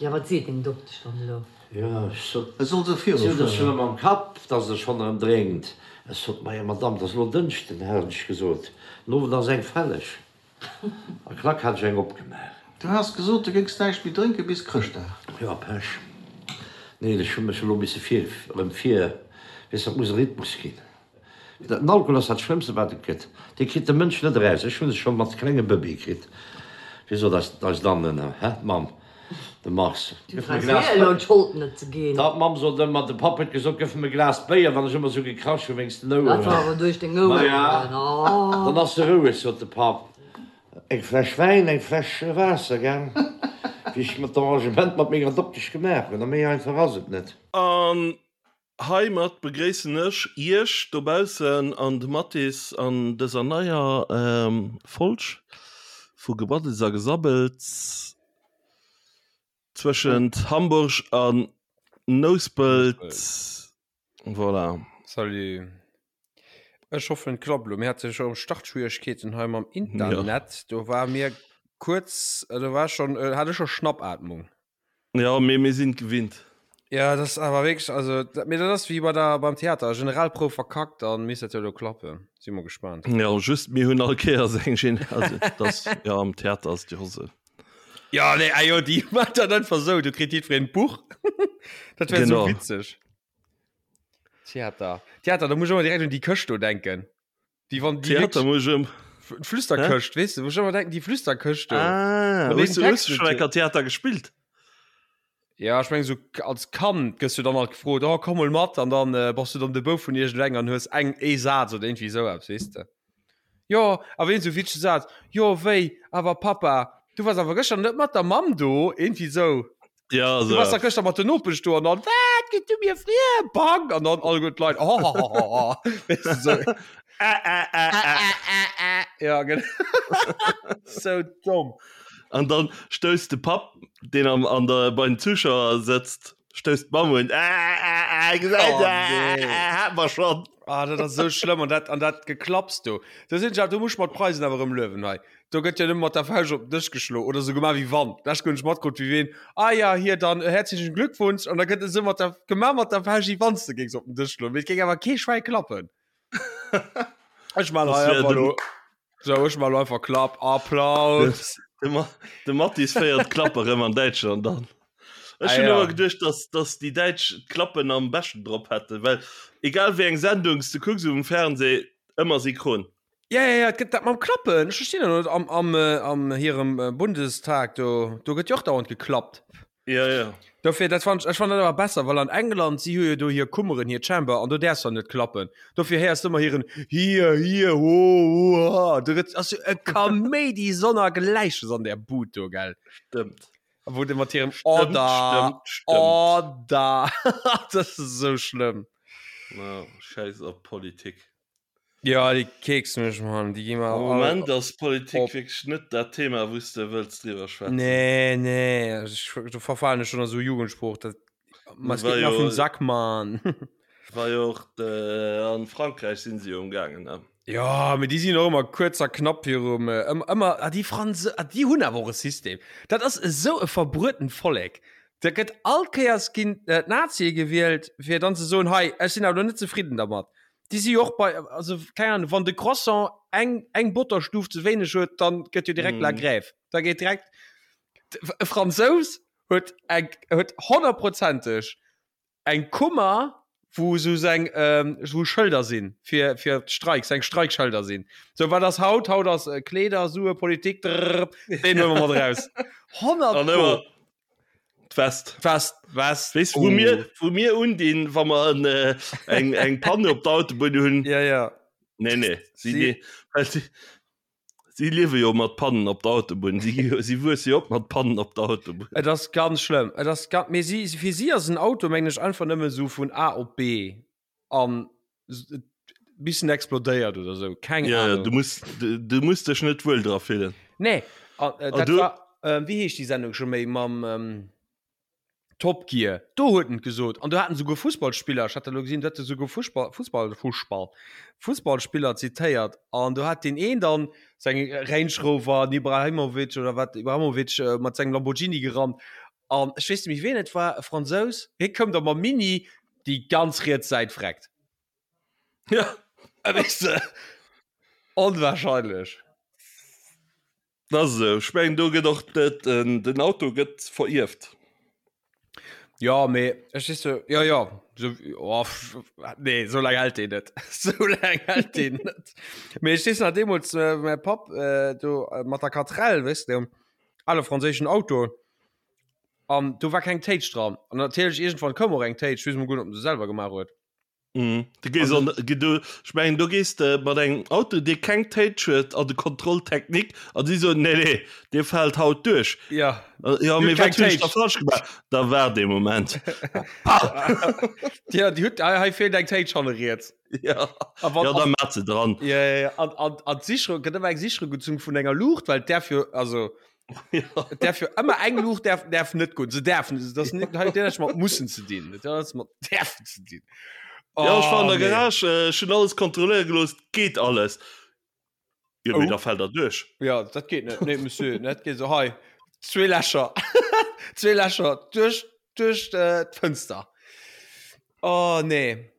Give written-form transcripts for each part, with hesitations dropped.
Jo, wat seet deng Doktesch dann elo? Jo, ech sot, E soll se si huet virufueren. et schonn ëm am Kapp, dass et schonn erëm drénkt. Ech sot, Majo Madamm, et ass elo Dënschden, hat ech gesot, den Owend ass eng fälleg. A klack hat ech eng opgemaach. Du has gesot, du géings näischt méi drénke bis Chrëschtdag. Jo, Pech. Neen, ech hu mech elo misse vir, erëm vir, weess, dat muss e Rhythmus ginn. Den Alkohol ass dat Schlëmmste wat et gëtt. Dee kritt de Mënsch net eraus. Ech hunn e scho mat klenge Bëbee kritt. Wéi sot eis eis Anne, hä, d'Mamm, de Mars, Du gëff mer e brauchs Glas mir elo d'Schold net ze ginn. Da, d'Mamm sot ëmmer, de Papp huet gesot, gëff em e Glas Béier, wann ech ëmmer esou gekrasch hu wéinst den Dat war Oueren. awer duerch deng Oueren, Maja, oh. dann ass se roueg, sot de Papp. Eng Fläsch Wäin, eng Fläsch Waasser, gell, wéi ech mer d'Arrangement mat menger Doktesch gemaach hunn. A méi einfach ass et net. An Heimat begréissen ech iech dobaussen an de Mathis an dëser neier Folg vu Gebraddels a Gesabbels zwëschent Hamburg an Nouspelt. Voilà. Salut. Ech hoffen et klappt elo. Mir hate scho Startschwieregkeeten hei mam Internet. Do war mir kuerz, do war schon, hat ech scho Schnappatmung. Ja, mee mir sinn et gewinnt. Ja, dat ass awer wierklech, also, dat, mee dat ass wéi bei der, beim Theater, Generalprouf verkackt, dann misst dat jo elo klappen. Si mol gespaant. Ja, just mir hunn all Kéiers eng Gen, also dat, ja, am Theater ass et jo esou. Ja, nee, ah jo, déi maachen dat einfach esou, do kritt jiddwereen d'Buch. Dat wär esou witzeg. Theater, Theater, da muss ech ëmmer direkt un déi Këscht do denken. Déi wann déi Theater muss ech ëm. D'Flüsterkëscht, weess de, wou ech ëmmer denken, déi Flüsterkëscht do. Ah, hues du hues du schonn eng Kéier Theater gespillt? Ja, ech meng sou als Kand gëss du dann alt gefrot, oh komm mol mat, an dann äh, bass du dann de Bouf vun iergendengem an hues eng ee Saz oder iergendwéi esou eppes, weess de. Jo, awer een sou witzege Saz, jo wéi, awer Papa, du waars awer gëschter net mat der Mamm do, iergendwéi esou. Ja, Du warst da gëschter mat den Nopesch do an dann wat gitt du mir friem Bang an dann all gutt Leit oh, oh, oh, oh. Weißt du, so. Ä, ä, ä, ä. Ja genau. So dumm. An dann stousst de Papp, deen am, an der, bei den Zuschauer sëtzt, stousst d'Mamm un. Ä, ä, ä, gesäit, Oh, ä, nee. ä, hat mer schonn. Ah, dat ass sou schlëmm an dat an dat Geklapps do. Do sinn ech awer, do muss ech mer d'Preisen awer erëm luewen hei. Do gëtt jo nëmme mat der Fauscht op den Dësch geschloen oder sou gemaach wéi wann. D'lescht Kéier hunn ech matkrutt wéi ween, ah ja, hier dann herzlichen Glückwunsch an da gëtt esou mat der gemaach mat der Fauscht wéi wann s de géings op den Dësch schloen, mee et géing awer kee Schwäi klappen. Ech man hei einfach elo, sou ech man elo einfach Klapp, Applaus. De, Ma de Mathis féiert d'Klappe rëm an Däitschland an. Ech Ah hunn ja. ëmmer geduecht, dass, dass déi Däitsch d'Klappen am beschten drop hätten, well egal wéi eng Sendung s de kucks um Fernseh, ëmmer synchron. Ja, ja, ja, et gëtt dat mam Klappen. Ech verstinn dat net. Am, am, äh, am hirem äh, Bundestag, do, do gëtt jo och dauernd geklappt. Ja, ja. Dofir, dat fand ech, ech fand dat awer besser, well an England, si hu jo do hir Kummeren, hir Chamber, an do däerfs der net klappen. Dofir héiers du ëmmer hiren Hier, hier, ho, ho, ha. Do gëtt, ass jo e Kaméidi sonnergläiches an där Bud do, gell? Stëmmt. A wou de mat hirem Stëmmt, Order, stëmmt, stëmmt. Order, dat ass esou schlëmm. Ja, schäiss op Politik. Ja, déi keksen mech, Mann. Déi gi mer Am all Moment ass Politik op. wierklech net dat Thema, wou s de wëlls driwwer schwätzen. Nee, nee, ech, do verfalen ech schon a sou Jugendsprooch. Dat, ma es War geht mir jo, auf den Sack, Mann. war jo och de, an Frankräich sinn se jo umgaangen, ne? Ja, mee déi sinn och ëmmer kuerz a knapp virum, ëmmer, ëmmer, ah, déi Franse, ah, déi hunn awer och e System. Dat ass esou e verbruetent Vollek. Da gëtt all Kéiers ginn d'Nazie gewielt, fir dann ze soen, hei, ech sinn awer elo net zefridden dermat. Déi si jo och bei, also keng Ahnung, wann de Croissant eng, eng Botterstuf ze wéineg huet, dann gëtt jo direkt la Grève. Da geet direkt, e Fransous huet eng, huet honnertprozenteg eng Kummer, wou esou seng, wou Schëlder sinn fir, fir d'Streiks, seng Streikschëlder sinn. Sou, wat ass haut? Haut ass Kleeder, Sue, Politik, drrrr, deen huele mer mat eraus. 100 An pro. ëmmer D'West. D'West, West. Weess wou mir, wou mir undinn, wa mer en, äh, eng, eng Panne op der Autobunn hunn? Ja, ja. Nee, nee. Si, Si- si, well si, si liewe jo mat Pannen op der Autobunn. Si, si wuesse jo op mat Pannen op der Autobunn. Et ass ganz schlëmm. Et ass ganz, mee si, fir si ass en Auto, mengen ech, einfach nëmme sou vun A op B an bis en explodéiert oder sou. Keng Ja, ja, Ahnung. du muss, du, du muss dech net wuel dra fillen. Nee, an, äh, An dat du- war, ähm, wéi heescht déi Sendung scho méi mam ähm, Top Gear? Do huet en et gesot. An do haten souguer Fussballspiller, ech hat dat elo gesinn, do hat e souguer Fussball, Fussball, Fussball, Fussballspiller zitéiert. An do hat deen een dann seng Range Rover, den Ibrahimovic oder wat, Ibrahimovic, äh, mat sengem Lamborghini gerannt. An ech weess net méi ween et war, e Fransous, hie koum da mam Mini, déi ganz riets Säit vreckt. Ja. Äh, weess de, onwahrscheinlech. Dat ass esou. Ech mengen do gëtt och den, den Auto gëtt verierft. Ja, mee ech weess jo, ja, ja, so, oh, nee, so laang hält deen net. So laang hält deen net. Mee ech weess nach deemools, äh, mäi Papp äh, do äh, mat der Quatrelle, weess de, ale franséischen Auto, an do war keng Téitsch dran. An natierlech iergendwann koum och eng Téitsch, weess mol guer net, ob en se selwer gemaach huet. Mhm. Du gees an, du, ech mengen do gees de mat engem Auto dee keng Téitsch huet an de Contrôle technique an si soen nee nee dee fält haut duerch. Ja. Ja mee wat hunn ech da falsch gemaach? Da waart ee Moment. Ja déi huet, hei feelt eng Téitsch hanne riets. Ja, ja da maat se dran. Ja, ja, ja. An, an, an d'Sicherung gëtt ëmmer eng Sicherung gezunn vun enger Luucht, well d'däerf jo, also ja. Därf jo ëmmer eng Luucht därf, därf net goen. Se därfen, das net huet näischt mat mussen ze dinn. Dat huet mat därfen ze dinn. Oh, ja, ech war an der Garage, äh, ech hunn alles kontrolléiere gelooss, geet alles. Jo, mee Oh. da fält der duerch. Ja, dat geet net. Nee, Monsieur, net geet so hei. Zwee Lächer. Zwee Lächer duerch, duerch äh, d'Fënster. Oh, nee.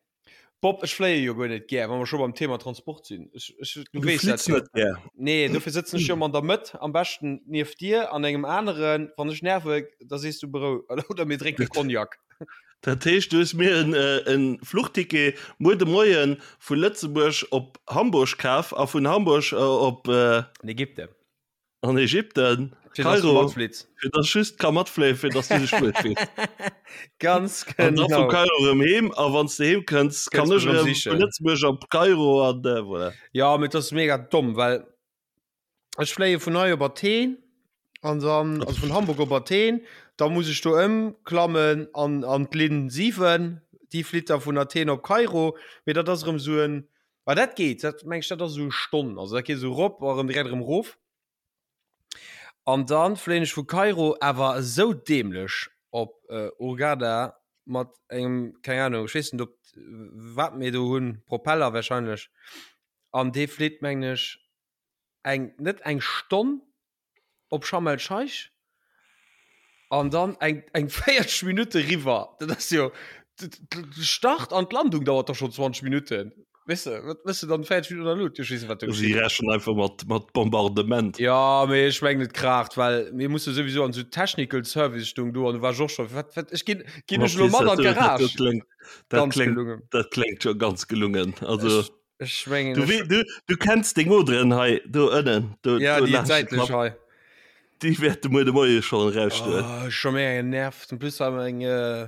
Bob, ech fléie jo guer net gär, wa mer scho beim Thema Transport sinn. Ech, ech, du Du weess dat flitts jo. net gär. Nee, dofir sëtzen ech jo ëmmer an der Mëtt, am beschten nieft dir an engem aneren. Wann ech nerve, da sees du berou oder mir drénke Cognac. Dat heescht, du hues mir en, äh, en Fluchticket muer de Moien vu Lëtzebuerg op Hamburg kaf a vun Hamburg äh, op äh, An Ägypten. An Ägypten, Fir dass du Kairo, matflitt. fir dass ech just ka matfléien, fir dass du dech wuel fills. Ganz An da vu genau. Kairo erëm heem a wann s de heem kënns, kann Kënns ech mech erëm erëm vu sichen. Lëtzebuerg op Kairo an äh, voilà. Ja, mee dat ass mega domm, well ech fléie vun hei op Athen an dann, also vun Hamburg op Athen, da muss ech do ëmklammen an, an d'Linn 7, déi flitt da vun Athen op Kairo, mee dat ass erëm esou en, Ah, dat geet, dat meng ech, dat ass esou Stonn, also dat geet esou rop a rëm direkt erëm rof. An dann fléien ech vu Kairo awer esou dämlech op äh, Hurghada mat engem, keng Ahnung, ech weess net op wat mir do hunn, Propeller wahrscheinlech. An dee flitt mengen ech eng, net eng Stonn, op Sharm el Scheich an dann eng eng 40 Minutte riwwer. Dat ass jo de Start an d'Landung dauert doch schon 20 Minutten. Weess de, wat mëss de dann 40 Minutten an der Luut? Ech weess net, wat do Si geschitt. rechnen einfach mat mat Bombardement. Ja, mee ech mengen et kraacht, well mir musse souwisou an esou Technical Service stung do an du war ech och scho wat wat ech ginn ginn ech elo mat an Dat d'Garage. kléngt dat Ganz kléngt gelungen. dat kléngt scho ganz gelungen. Also Ech Ech mengen, Du, ech, du, du kenns deng Oderen hei do ënnen. Do, ja, do déi laanscht de säitlech Klapp. hei. Déi wäerte muer de Moie schonn erausstoen. Oh, ech scho mega genervt. En plus war meng, äh,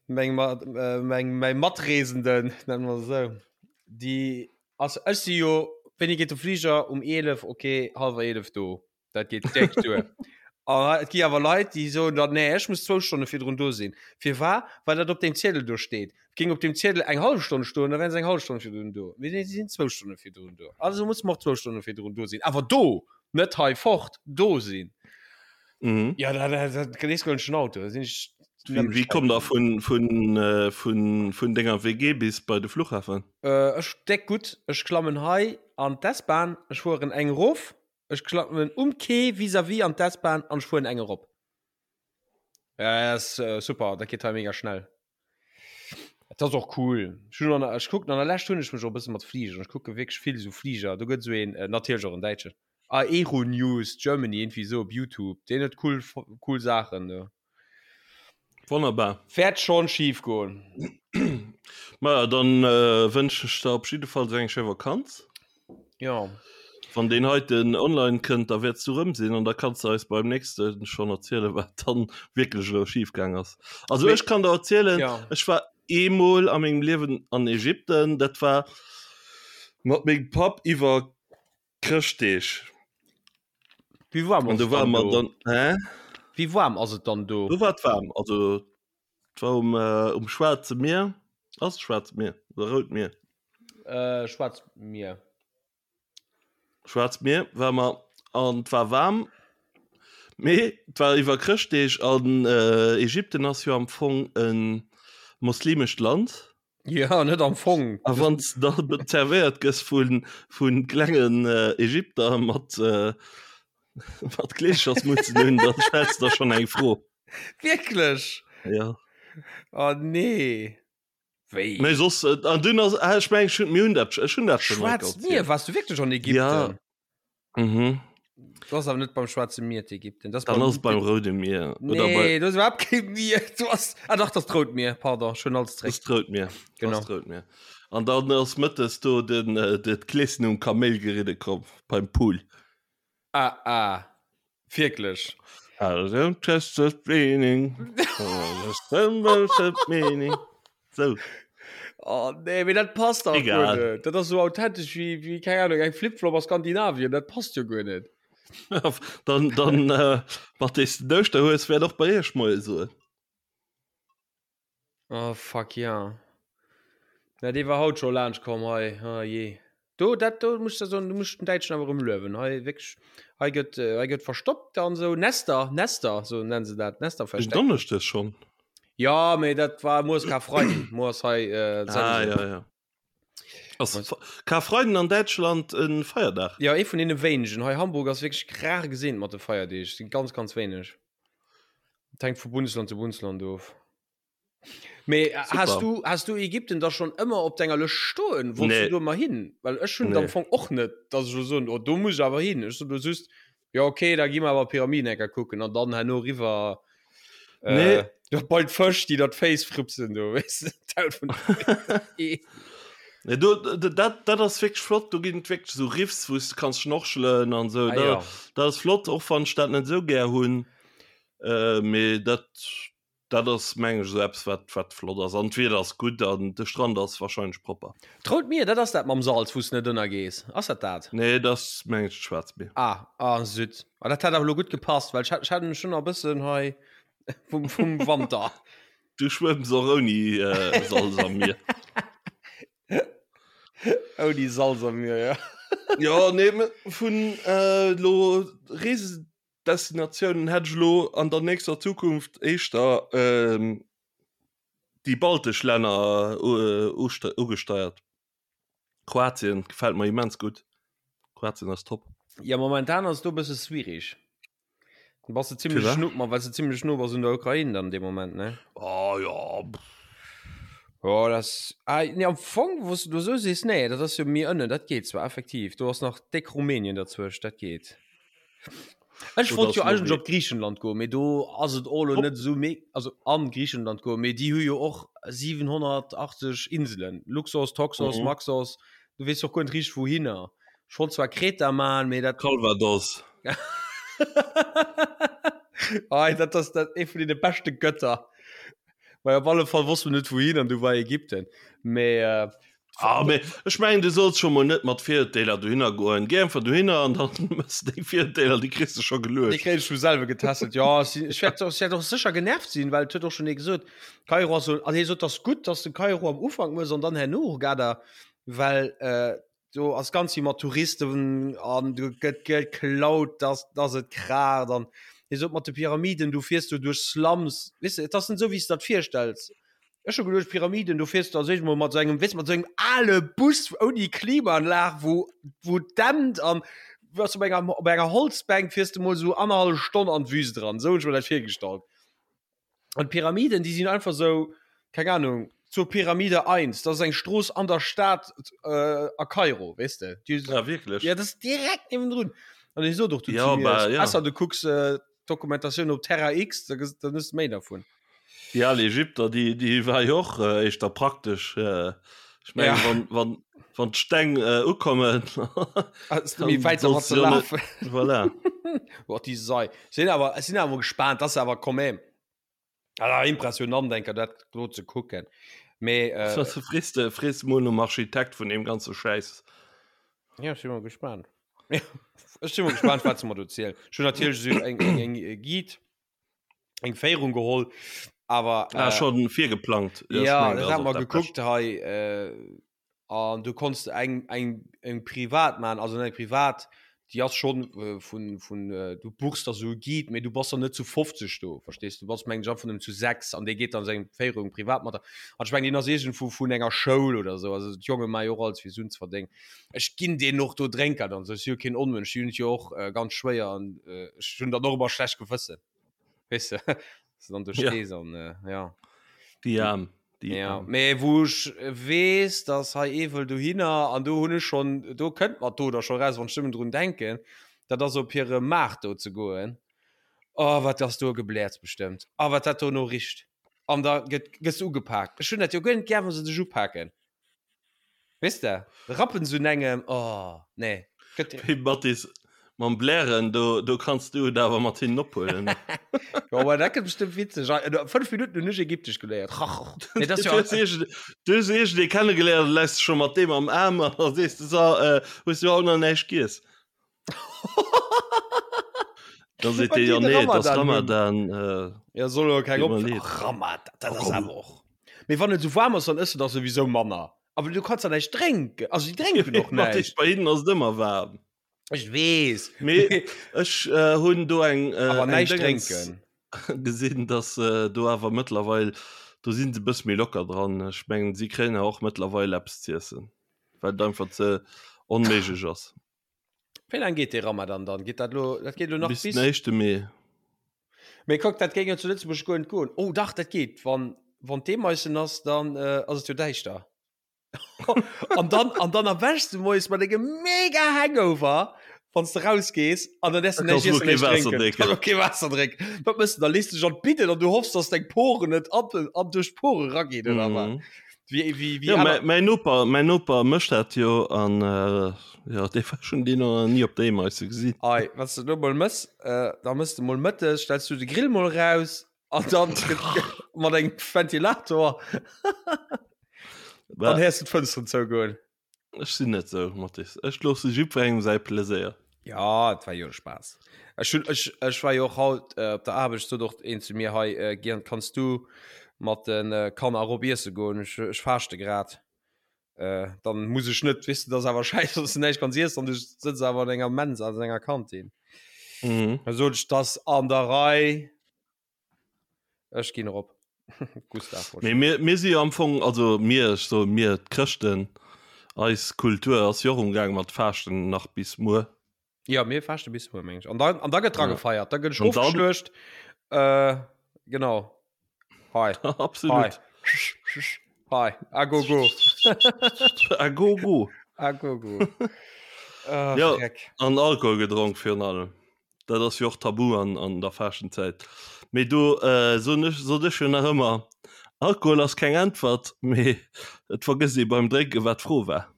meng, Ma- äh, meng, mäi Matreesenden, nennen mer se esou, déi, also ech si jo, wéini geet de Fliger? Um 11, okay, hallwer 11 do. Dat geet déck duer. A et gi awer Leit, déi soen dann, nee, ech muss zwou Stonne virdrun do sinn. Firwat? Well dat op deem Ziedel do steet. Géing op deem Ziedel eng hallef Stonn stoen, da wären se eng hallef Stonn virdrun do. Mee nee, si sinn zwou Stonne virdrun do. Also muss mer och zwou Stonne virdrun do sinn. Awer do! Net hei fort, do sinn. Mhm. Ja, da, da, da, da nees goen ech den Auto. Da sinn ech Wéi, wéi kommt der vun, vun, äh, vun, vun denger WG bis bei de Flughafen? Äh, ech déck gutt. Ech klammen hei an d'S-Bahn, ech fueren eng erof. Ech klammen um Quai vis-à-vis an d'S-Bahn an ech fueren eng erop. Ja, ass äh, super, dat geet hei mega schnell. Dat ass och cool. Ech hunn an, ech kucken an der Lescht hunn ech mech och e bësse mat Fligeren. Ech kucke wierklech vill esou Fliger. Do gëtt esou een, äh, natierlech och en Däitschen, Aeronews Germany, irgendwie esou op Youtube. Deen huet cool, cool Saachen do. Wonnerbar. Wäert schon schief goen. Maja, dann äh, wënschen ech der op jiddefalls eng schéi Vakanz. Ja. Wann deen heiten online kënnt, da wäerts du rëm sinn an da kanns du eis beim nächste schon erzielen, wat dann wierklech elo schief gaang ass. Also Mee- ech kann der erzielen, Ja. ech war eemol a mengem Liewen an Ägypten, dat war mat mengem Papp iwwer Chrëschtdeeg. Wéi waarm An ass do et war dann mer do? dann hä? Wéi waarm ass et dann do? Do war et waarm, also et war um, äh, um Schwaarze Mier. Ass et Schwaarzt Mier oder Rout Mier? Äh, Schwaarzt Mier. Schwaarzt Mier war mer an et war waarm, mee et war iwwer Chrëschtdeeg an äh, Ägypten ass jo am Fong e moslimescht Land. Ja, net am Fong. A wann s da zerwéiert gëss vu vu klengen Ägypter mat mat Kleeschersmutzen un, da stells de der schonn eng Fro. Wierklech? Ja. Oh nee. Wéi? Mee soss, äh, an dunn ass, ah, ech meng, ech hunn, mir hunn dat, ech hunn dat schon mal Schwaarzt Mier, warst du wierklech an Ägypten? Ja. Mhm. Du ass awer net beim Schwaarze Mier d'Ägypten. Das Dann ass beim Roude Mier. Oder bei, Nee, du ass iwwerhaapt kee Mier. Du ass, ah dach, das d'Rout Mier, pardon, schon alles das zréck. d'Rout Mier. Genau. Das d'Rout Mier. An dann ass mëttes do den, äh, de d'Kleeschen um Kaméil geridde komm, beim Pool. Ah, ah. Wierklech? I don't trust the meaning. meaning. So. Oh nee, mee dat passt dach guer net. Dat ass sou authentesch wéi, wéi, keng Ahnung, eng Flip-Flop a Skandinavien. Dat passt jo guer net. Dann, dann, äh, mat dees de den Ouschterhues wäert och bei iech Moie soen. Oh fuck ja. Na dee war haut scho laanscht komm hei. Oh jee. Do dat do muss der soen, du muss den Däitschen awer erëm luewen. Hei wierklech, hei gëtt äh, hei gëtt verstoppt an sou Nester, Nester, sou nennen se dat, Nester Den versteckt. Donneschdes schonn. Ja, mee dat war muer ass Karfreiden, muer ass hei äh, Ah Sense. ja ja. Ass Karfreiden an Däitschland en Feierdag? Ja, ee vun deene wéinegen. Hei Hamburg ass wierklech rar gesinn mat de Feierdeeg, sinn ganz ganz wéineg. Et hänkt vu Bundesland zu Bundesland of. Mee äh, Super. has du, has du Ägypten da schon ëmmer op denger Lëscht stoen? Wolltest Nee. du do ëmmer hin? Well ech hunn Nee. am Fong och net, dass ech lo soen, oh, do muss ech awer hin. Ech sot lo just, ja okay, da gi mer awer Pyramiden enker kucken an dann herno riwwer äh, Nee. do bei d'Fësch, déi der d'Féiss frupsen do, weess de, d'Haut vun Nee, do, dat, dat ass wierklech flott, do ginn et wierklech esou Riffs, wou s de kanns schnorchelen an esou. Ah, Dat, ja. dat ass flott, och wann ech dat net esou gär hunn. Äh, mee dat, dat ass meng ech esou eppes, wat, wat flott ass. An d'Wieder ass gutt an de Strand ass warscheinlech propper. D'Rout Mier, dat ass dat mam Salz, wou s de net ënnergees. Ass dat dat? Nee, dat ass meng ech d'Schwaarzt Mier. Ah, ah, Süd. Ah, dat hätt awer elo gutt gepasst, well ech hat, ech hat schon nach e bëssen hei vum, vum Wanter. Du schwëmms och ouni äh, Salz am Mier. Ouni Salz am Mier, ja. Ja, nee, vun äh, lo Reesedestinatiounen hätt ech lo an der nächster Zukunft éischter ähm, déi baltesch Länner äh, ugesteiert. Kroatien gefält mer immens gutt. Kroatien ass top. Ja, momentan ass do e bësse schwierig. Du bass du ziemlech Firwat? no, ma well du ziemlech no bass un der Ukraine dann dee Moment, ne? Oh ja. Ja, das ah, nee, am Fong, wou du so sees, nee, dat ass jo méi ënnen, dat geet zwar effektiv. Do ass nach déck Rumänien dazwëscht, dat geet. Ech Oder wollt jo ass eigentlech Norwegen. op Griichenland goen, mee do ass et och elo Op. net esou me also an Griichenland goen, mee déi hu jo och 780 Inselen, Luxos, Toxos, Mhm. Maxos, du weess och guer net richteg wouhinner. Ech wollt zwar Kreta man, mee dat Calvados. Ei, dat ass dat ee vun deene beschte Götter. Well op alle Fall wosst mer net wouhin an du war Ägypten. Mee äh, Ah, mee ech mengen du solls scho mol net mat Virurteeler dohinner goen. Géi einfach dohinner an dann mëss deng Virurteeler, déi kriss de scho Déi geluecht. kréien ech vum selwe getässelt. Ja, ech sinn, ech wäert, ech wäert och sécher genervt sinn, well et huet och schonn ee gesot, Kairo ass sou, also hie sot, ass gutt, dass de Kairo am Ufank mëss an dann herno Hurghada, well äh, do ass ganz vill mat Touristen an do gëtt geklaut, dass, dass et kraacht an hie sot mat de Pyramiden, du fiers do duerch Slums, weess de, et ass net esou, wéi s de dat virstells. Ech hu geduecht, Pyramiden, do fiers du als éischt mol mat sou engem, weess de, mat sou engem ale Bus ouni Klimaanlag, wou, wou et dämpt an wou s op enger, op enger Holzbänk fiers de mol sou annerhallef Stonn an d'Wüst eran. Sou hunn ech mer dat virgestallt. An d'Pyramiden, déi sinn einfach sou, keng Ahnung, zur Pyramide 1, dat ass eng Strooss an der Stad äh, a Kairo, weess de. Déi, Ja, wierklech? ja, dat ass direkt niewendrun. An hie sot och du Ja, zu mir, bah, ja. besser du kucks äh, Dokumentatioun op Terra X, da ges- dann hues de méi davon. Déi al Ägypter, déi, déi war jo och äh, éischter praktesch. Äh, ech mengen, Ja. wann, wann, wann d'Steng äh, ukommen, Ass méi dann wäit dermat sollst ze du jo net. lafen. Voilà. Boah, déi Sei. Sinn awer, ech sinn awer gespaant, das ass awer quand même ah, impressionant enker dat do ze kucken. Mee äh, Was frees de, frees mol nom Architekt vun deem ganze Schäiss. ja, ech sinn mol gespaant. Ech sinn mol gespaant, wat se mer do zielen. Ech hunn natierlech esou eng, eng, eng äh, Guide, eng Féierung geholl, awer Ah, äh, schon virgeplangt. Ja, ech ja, mengen, dat dat ass hat och mer dat gekuckt Bescht. hei äh, An du konns eng, eng, eng privat man, also eng privat, déi ass schon äh, vun, vun äh, du buchs der sou e Guide, mee du bass dann net zu 50 do, verstees du? Bass mengen ech einfach nëmmen zu 6 an dee geet dann seng Féierung privat mat der. An ech mengen deen ass iergendwou vun enger Schoul oder sou, also d'Jonge maache jo och alles fir Suen ze verdéngen. Ech ginn deenen och do Drénkert an sou, ech si jo keen Onmënsch, déi hunn et jo och äh, ganz schwéier an äh, ech hunn dann och ëmmer schlecht Gewëssen, weess de? Se dann do stees an ja. Déi Aarm. Déi ja. Aarm. Mee wou ech weess, dass hei ee wëll dohinner an do hunn ech schonn, do kënnt mer d'Oder scho raus, wann ech nëmmen drun denken, dat ass op hire Maart do ze goen. Oh, wat ass do e Gebläerz bestëmmt. A wat dat dono richt. An da gëtt, gëss du ugepaakt. Ech hunn dat jo guer net gär, wa se dech upaken. Weess de, rappen se un engem, oh, nee. Gëtt. Hey Mathis, mam Blären, do, do kanns du et awer mat hinnen ophuelen. Jo, ma dat gëtt bestëmmt witzeg. Ah, no 5 Minutten hunn ech Ägyptesch geléiert. Nee, dat ass jo. Du hues iergend, du hues iergendee kennegeléiert, da läis de scho mat deem am Aarm an da sees de, So, äh, hues du haut nach näischt giess? Da seet dee, jo, nee, et ass Ramadan. Äh, Ja, soll jo keng op. Ramadan, dat ass awer och. Mee wann et sou waarm ass, dann ëss de dach souwisou manner. Awer du kanns da näischt drénken. Also déi drénken och näischt. Bei hinnen ass et ëmmer waarm. Ech weess. Mee ech äh, hunn do eng, äh, Awer näischt drénken. gesinn, dass äh, do awer mëttlerweil, do sinn se bësse méi locker dran. Ech mengen, si kréien awer och mëttlerweil eppes z'iessen, well et einfach ze onméiglech ass. Wéi laang geet dee Ramadan dann? Geet dat lo, dat geet lo nach bis den éischte Mee. Mee kuck, dat géing jo zu Lëtzebuerg guer net goen. Oh dach, dat geet. Wann, wann d'Eemaissen ass, dann äh, ass et jo däischter. an dann, an dann erwächs du moies mat engem mega Hangover, wann s de rausgees, an dann däerfs du Da näischt kanns du iessen, kee näischt Waasser drénken. drénken. Kann och kee Waasser drénken. Wat mëss du? Da lees du dech an d'Bidden an du hoffs, dass deng Poren net an, an duerch d'Pore raginn, oder wat? Mhm. Wie, wie, wie Ja, aner. mäi, mäi Noper, mäin Noper mécht dat jo an äh, ja, dee war schon deen nach ni op der Eemeise gesinn. Ei, wat s de do mol mëss, äh, da mëss de mol mëttes, stells du de Grill mol raus an dann mat engem Ventilator, dann Bah, héiers du d'Fënsteren zougoen. ech sinn net sou, Mathis. Ech loosse jiddwerengem säi Pleséier. Ja, et war jo e Spaass. Ech hunn, ech, ech war jo och haut äh, op der Aarbecht, sot och een zu mir, hei, äh, Gern, kanns du mat den äh, Kanner erop iesse goen? Ech, ech faaschte grad. Äh, dann muss ech net, weess de, dat ass awer schäiss, wann s du näischt kanns iessen an du sëtz awer an enger Mensa, an enger Kantin. Mhm. Da sot ech, 't ass an der Rei. Ech ginn erop. Gustav. Mee mir, mir si jo am Fong, also mir, ech soe mir, d'Chrëschten, eis Kultur ass jo och umgaang mat Faaschten nach bis muer. Ja, mir faaschte bis muer, meng ech. An dann, an da gëtt dra Ja. gefeiert, da gëtt ech An dann- ofgeschluecht. Äh, genau. Hei. Absolut. Hei. A go go. A go go. A go go. Äh, Ja. Dreck. An Alkohol gedronk virun allem. Dat ass jo och tabu an, an der Faaschtenzäit. Mee do äh, soen ech, sot ech jo nach ëmmer, Alkohol ass keng Äntwert, mee et vergësst ee beim Drénken, wat d'Fro war.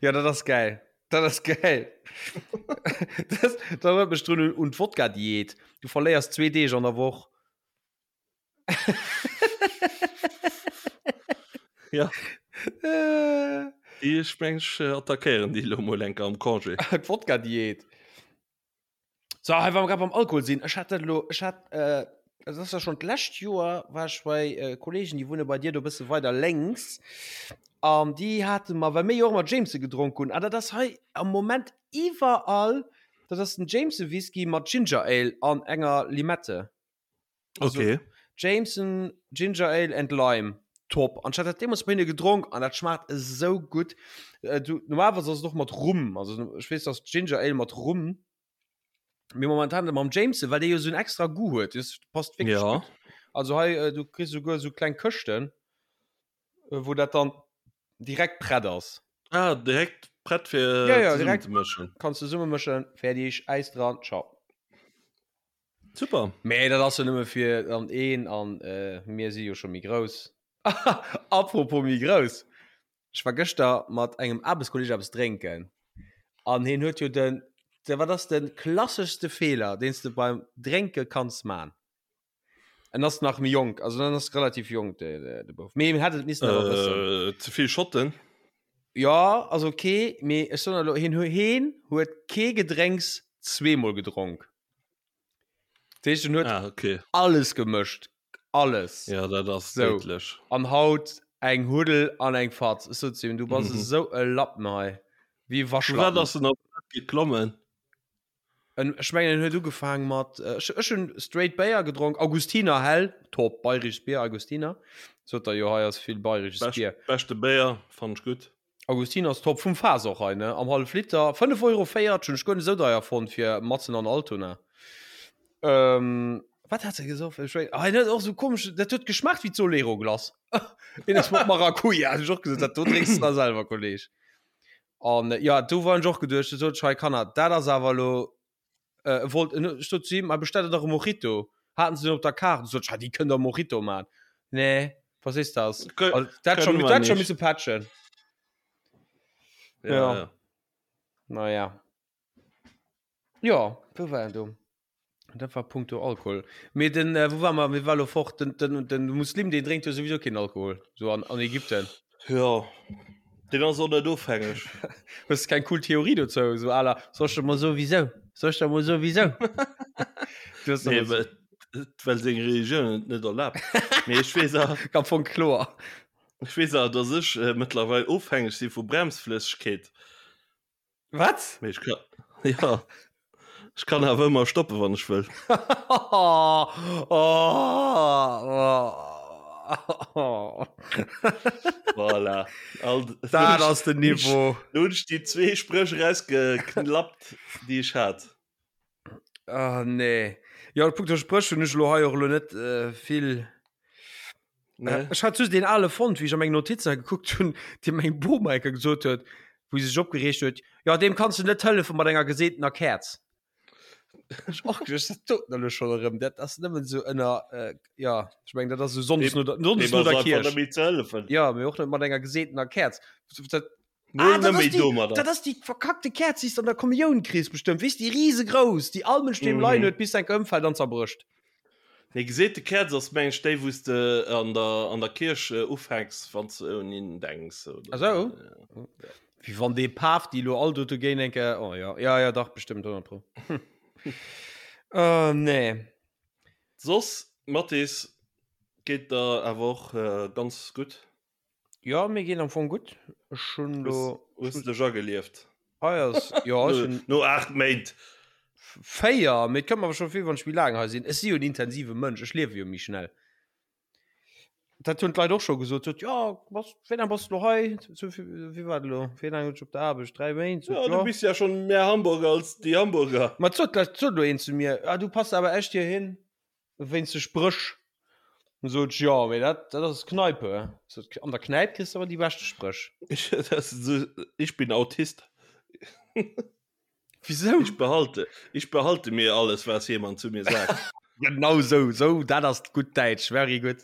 ja, dat ass geil. Dat ass geil. das, dat erinnert mech drun un, un d'Wodka-Diät. Du verléiers zwee Deeg an der Woch. Ja, Äh, déi ech meng ech äh, attackéieren déi lo mol enker am Congé. D'Wodka-Diät. So, hei, wa mer grad beim Alkohol sinn, ech hat dat elo, ech hat, äh, dat ass ja schon d'lescht Joer, war ech bei äh, Kollegen, déi wunne bei dir do e bësse weider lénks, an déi hate mer, well mir jo och ëmmer Jameson gedronk hunn, an dat ass hei am Moment iwwerall, dat ass den Jameson Whisky mat Ginger Ale an enger Limette. Also, Okay. Jameson, Ginger Ale and Lime. Top. An ech hat dat deemools bei hinne gedronk an dat schmaacht esou gutt. Äh, du, normalerweis ass et och mat Rum. Also ech weess, dass Ginger Ale mat Rum. Mee momentan mam Jameson, well dee jo esou en extra Goût huet. Das passt wierklech Ja. gutt. Also hei, äh, du kriss souguer esou kleng Këschten, äh, wou dat dann direkt prett ass. Ah, direkt prett fir Ja, ja, zesummen direkt. ze mëschen. Kanns zesummemëschen, fertig, Äis dran, ciao. Super. Mee dat ass jo nëmme fir an een an äh, mir si jo scho méi grouss. Apropos méi grouss. Ech war gëschter mat engem Aarbechtskolleg eppes drénken an hien huet jo den, de wat ass de klasseschste Feeler, deen s de beim Drénke kanns man? En ass nach méi jonk, also en ass relativ jonk de, de, de Bouf. Mee hien hätt et missen awer wëssen. Äh, ze vill Schotten. Ja, ass ok, mee ech soen elo, hien, hien huet kee Gedrénks zweemol gedronk. Dat heescht, en huet Ah, okay. alles gemëscht. Alles. Ja, dat ass So. déidlech. An haut eng Huddel an eng Fatz. Ech sot zu him, du bass Mhm. esou e Lappen hei. Wéi e Vu wat Waschlappen. ass en op dat geklommen? En, ech mengen, en huet ugefaang mat, äh, ech, ech hunn straight Béier gedronk, Augustiner hell, top, bayrisches Bier, Augustiner. Sot der jo, hei ass vill bayrisches Bescht, Bier. beschte Béier, fannt ech gutt. Augustiner ass top, vum Faass och hei, ne? Am hallef Liter, 5,40 Euro, hunn ech guer net esou deier fonnt fir matzen an Altona. Wat hat se gesoff? Ech wéi, ah, dat och so komesch, dat huet geschmaacht wéi d'Solero-Glace. Een ass mat Maracuja, hunn ech och gesot, dat do drénks de da selwer, Kolleg. An äh, ja, do war ech och geduecht, du sot ech, hei Kanner, dat ass awer elo, äh, wollt, ech sot zu him, ma bestellt der dach e Mojito. Haten se den op der Kaart, du sot ech, ha, déi kënnt der Mojito man. Nee, was ist das? Kö Also, dat kënne schon, mer dat schon nicht. misse patchen. Ja, Ja. ja. Naja. Ja, wou war en do? Dat war punkto Alkohol. Mee den, äh, wou war mer, mir war lo fort, den, den, den Muslim, deen drénkt jo souwisou keen Alkohol, so an, an Ägypten. Ja, deen ass och net ofhängeg. Hues de keng cool Theorie dozou, so à la, soll ech der mol soen, wisou? Soll ech der mol soen, wisou? Du hues Nee, der well, well seng Religioun et net erlaabt. Mee ech weess awer, am Fong kloer. ech weess awer, dass ech äh, mëttlerweil ofhängeg si vu Bremsflëssegkeet. Wat? Mee ech kann, ja, ech kann awer ëmmer stoppen, wann ech wëll. oh, oh, oh. Voilà. All, Dat ass den Niveau. Lo hunn ech déi zwee Spréch erausgeklappt, déi ech hat. Ah, nee. Ja, punkto Spréch hunn ech elo hei och elo net äh, vill. Nee. Ech hat just deen ale fonnt, wéi ech a meng Notizen gekuckt hunn, dee meng Boma enker gesot huet, wou se sech opgereegt huet, Jo, deem kanns du net hëllefe mat enger geseetener Käerz. Ech och geduecht, dat doten elo schonn erëm, dat ass nëmmen esou ënner, äh, ja, ech mengen, dat ass esou sonndes no der, sonndes Deem no ass der einfach Kierch. net méi ze hëllefen. Ja, mee och net mat enger geseetener Käerz. Dat, Mol ah, dat net ass méi déi, domadder. dat ass déi verkackte Käerz, déi s de an der Kommioun kriss bestëmmt, weess, déi risegrouss, déi all Mënsch doheem leien Mhm. huet, bis se enker ëmfält an zerbrécht. Nee, geseete Käerz ass meng ech déi wou s de an der an der Kierch ufänks wann s de un een denks oder Ah sou? Wéi wann dee Paf déi elo all do dogéint eng Kéier, oh jo, ja ja dach bestëmmt 100 pro. Oh nee. Soss Mathis, geet der awer och ganz gutt? Jo, mir geet am Fong gutt. Ech hunn Hues lo. hues de dech agelieft? Hei ass, jo, ech hunn. No 8 Méint. 4, mee et kënnt mer awer scho vir, wann ech méi laang hei sinn. Ech si jo en intensive Mënsch, ech liewe jo méi schnell. Dat hunn d'Leit och scho gesot, sot, jo, bass, wéi laang bass de lo hei? Sou, wéi war dat elo? Wéi laang hunn ech op der Aarbecht? 3 Méint? Sot, Ja, du jo. bis ja schonn méi Hamburger als déi Hamburger. Ma et sot lech, et sot elo een zu mir, ah, du pass awer echt hir hin. Wéinst de Spréch. Dann sot ech, jo, mee dat, dat ass Kneipe. Sot, an der Knäip kriss de awer déi beschte Spréch. Ich, das ist so, ich bin Autist. Wieso? Ich behalte, ich behalte mir alles, was jemand zu mir sagt. Genau sou, sou, dat ass gutt Däitsch, very good.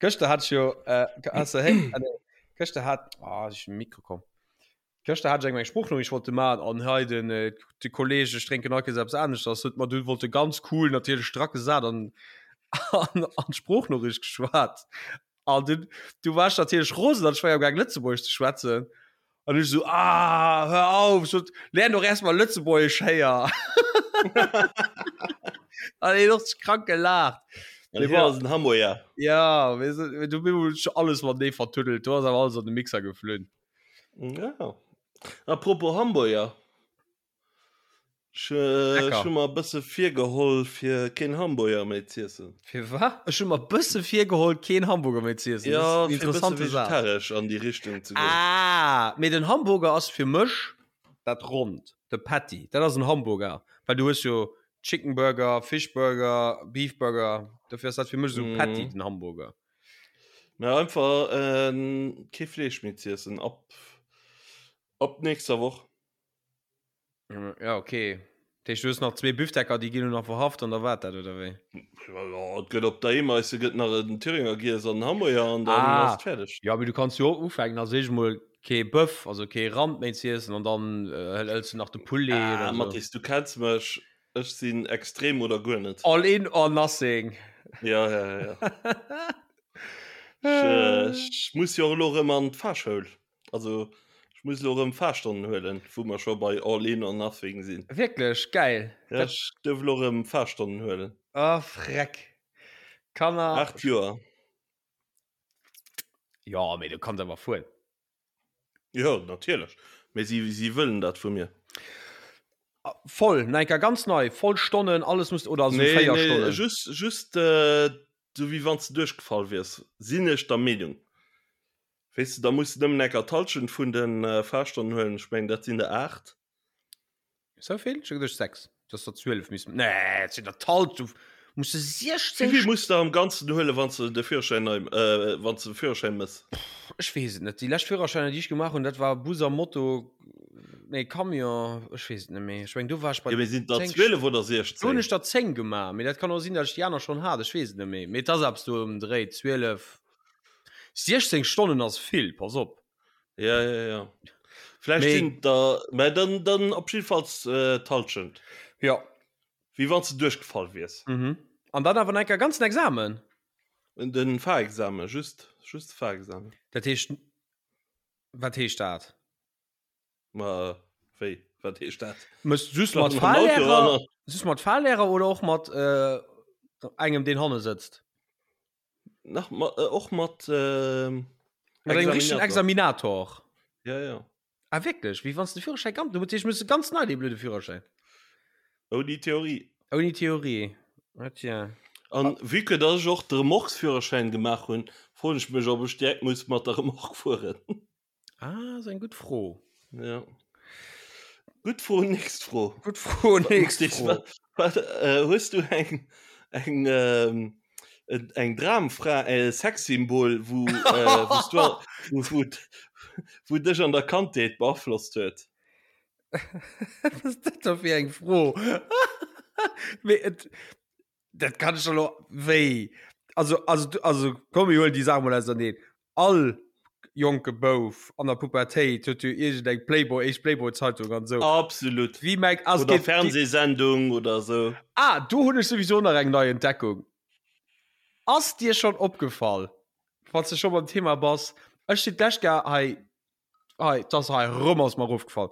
Gëschter hat ech jo, äh, has de héi, ah, nee, gëschter hat, ah, ech Mikro komm. Gëschter hat ech eng meng Sproochnoriicht wollte man an hei den äh, de Kolleg ech drénken all Kees eppes aneschters huet mer dunn wollte ganz cool natierlech strack gesat an an an d'Sproochnoriicht geschwat an dunn du war ech natierlech rosen an ech war jo am gaang Lëtzebuergesch ze schwätzen an ech esou ah hör auf sot lern doch erst mal Lëtzebuergesch héier an hien och sech krank gelaacht. An hien ass en Hamburger. Ja, weess du, du bin alles matenee vertuddelt, do ass awer alles an de Mixer geflunn. Ja. Apropos Hamburger. Ech, äh, ech hu mer e bësse virgeholl fir keen Hamburger méi z'iessen. Fir wat? Ech hu mer e bësse virgeholl keen Hamburger méi z'iessen. Ja, Das ist fir e bësse interessante Saach. vegetaresch an déi Richtung ze goen. Ah, mee den Hamburger ass fir mech dat Ronnt, de Patty. Dat ass en Hamburger, well du hues jo Chicken Burger, Fish Burger, Beef Burger. Dofir ass dat fir mech esou Patty, Mhm. den Hamburger. Mä einfach kee Fleesch méi z'iessen ab ab nächster Woch. Ja okay. Dat heescht du hues nach zwee Büftecker, déi ginn elo nach verhaft an da war dat oder wéi? Jo, et gëtt op der Emeise gëtt nach en Thüringer giess an en Hamburger an dann Ah. ass et fäerdeg. Ja, mee du kanns jo och ufänken, also eescht emol kee Bëff, also kee Rand méi z'iessen an dann hëls du nach de Poulet Ah, oder sou. Mathis, du kenns mech, Ech sinn extrem oder guer net. All in or nothing. Ja, ja, ja. Ech, äh, ech muss jo och elo erëm an d'Fahrschoul. Also ech muss elo erëm Fahrstonnen huelen, wou mer scho bei All in or nothing sinn. Wierklech? Geil. Ja, ech duerf elo erëm Fahrstonnen huelen. Oh, freck. Kanner. 8 Joer. Jo, mee du kanns awer fueren. Jo, natierlech. Mee si, si wëllen dat vu mir. Voll, no enker ganz nei, voll Stonnen, alles muss, oder also Nee, 4 nee, Stonnen. just, just äh, sou wéi wann s de duerchgefall wiers, sinn ech der Meenung. Weess de, da muss de nëmmen enker d'Hallschent vun de äh, Fahrstonnen huelen. Ech mengen, dat sinn der 8. Sou vill? Ech hu geduecht 6. Dass der 12 missten. Nee, et sinn der d'Hallschent. Muss de 16 Wéi vill muss de am Ganzen huelen, wann s de de Führerschäin nei, äh, wann s de Führerschäin mëss? Ech weess et net. Déi lescht Führerschäiner, déi ech gemaach hunn, dat war Bus a Moto, nee Camion, ech weess et net méi. Ech meng do war ech bei Jo, mee sinn et der 10 12 oder Do hunn 16? ech der 10 gemaach, mee dat kann och sinn, datt ech déi aner schonn hat, ech weess et net méi. Mee et ass eppes do ëm den Dréi, 12, 16 Stonnen ass vill, pass op. Ja, ja, ja. Vläicht Mee sinn et der, mä dann, dann op jiddefalls d'Hallschent. Jo. Wéi wann s de duerchgefall wiers. Mhm. An dann awer nach enker ganzen Examen? Den Fahrexamen, just, just de Fahrexamen. Dat heescht, wat heescht dat? Ma wéi, wat heescht dat? Mëss just mat Fahrlehrer, just mat Fahrlehrer oder och mat äh, engem, deen hanne sëtzt? Nach ma, äh, och mat äh, Mat engem richtegen Examinator. Ja, ja. Ah wierklech? Wéi wann s de Führerschäin ganz, du muss muss ganz nei dee blöde Führerschäin. Ouni Theorie. Ouni Theorie. Ah tiens. An vue que dass ech och de Remorquesführerschäin gemaach hunn, froen ech mech, ob ech direkt muss mat der Remorque fueren. Ah, ass eng gutt Fro. Ja. Gutt Fro, nächst Fro. Gutt Fro, nächst Fro. Wat, äh, hues du eng, eng, ähm, eng Dramfra, e Sexsymbol, wou, äh, wous du, wou, wou, wou dech an der Kandheet beaflosst huet? Wat ass dat da fir eng Fro? Mee et, dat kann ech elo, wéi? Also, also, also komm, mir huelen déi Saach mol auserneen. All jonke Bouf an der Pubertéit huet jo iergend eng Playboy, éischt Playboy-Zeitung an esou. Absolut. Wie mengt, also Oder geht, Fernsehsendung oder esou. Ah, do hunn ech souwisou nach eng nei Entdeckung. Ass dir schonn opgefall, wann s de scho beim Thema bass, ech sinn d'lescht Jahr hei, hei, 't ass hei erëm ass mer erofgefall,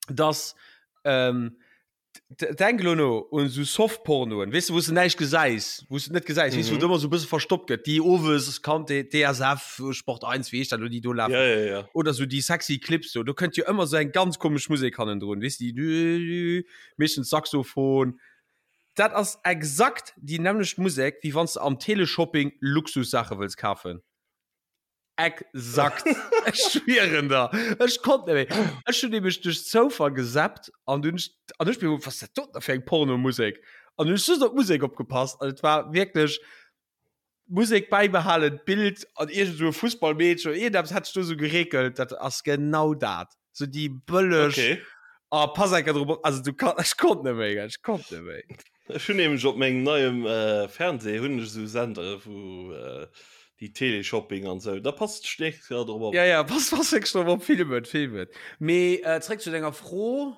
dass, ähm, Denk elo no un esou Softpornoen, weess de, wou s de näischt gesäis, wou s de net gesäis, weess de, wou et ëmmer esou e bësse verstoppt gëtt, déi owes kannt de DSF, Sport 1, wéi heescht dat elo, déi do lafen. Ja, ja, ja. Oder esou déi sexy Clips do, do kënnt jo ëmmer esou eng ganz komesch Musek hannendrun, weess de, déi meeschtens Saxophon. Dat ass exakt déi nämmlecht Musek, wéi wann s de am Teleshopping Luxussaache wëlls kafen. Exakt. Ech schwieren der. Ech konnt net méi. Ech hunn nämlech duerch Zoufall gesappt an dunn an ech mir was dat doten fir eng Pornomusek? An hunn ech just op d'Musek opgepasst an et war wierklech Musek bäibehalen, d'Bild an iergend esou e Fussballmeedchen oder iergendeppes hat sech do esou gereekelt. Dat ass genau dat. Sou déi bëlleg. Okay. Oh, pass enker drop op. Also du kann, ech konnt net méi, ech konnt net méi. Ech hunn nämlech op mengem neiem äh, Fernseh hunn ech esou Sendere wou äh, déi Teleshopping an sou. Da passt ech nächst Joer drop op. Ja, ja, pass, pass wierklech drop op, film et, film et. Mee äh, zréck zu denger Fro.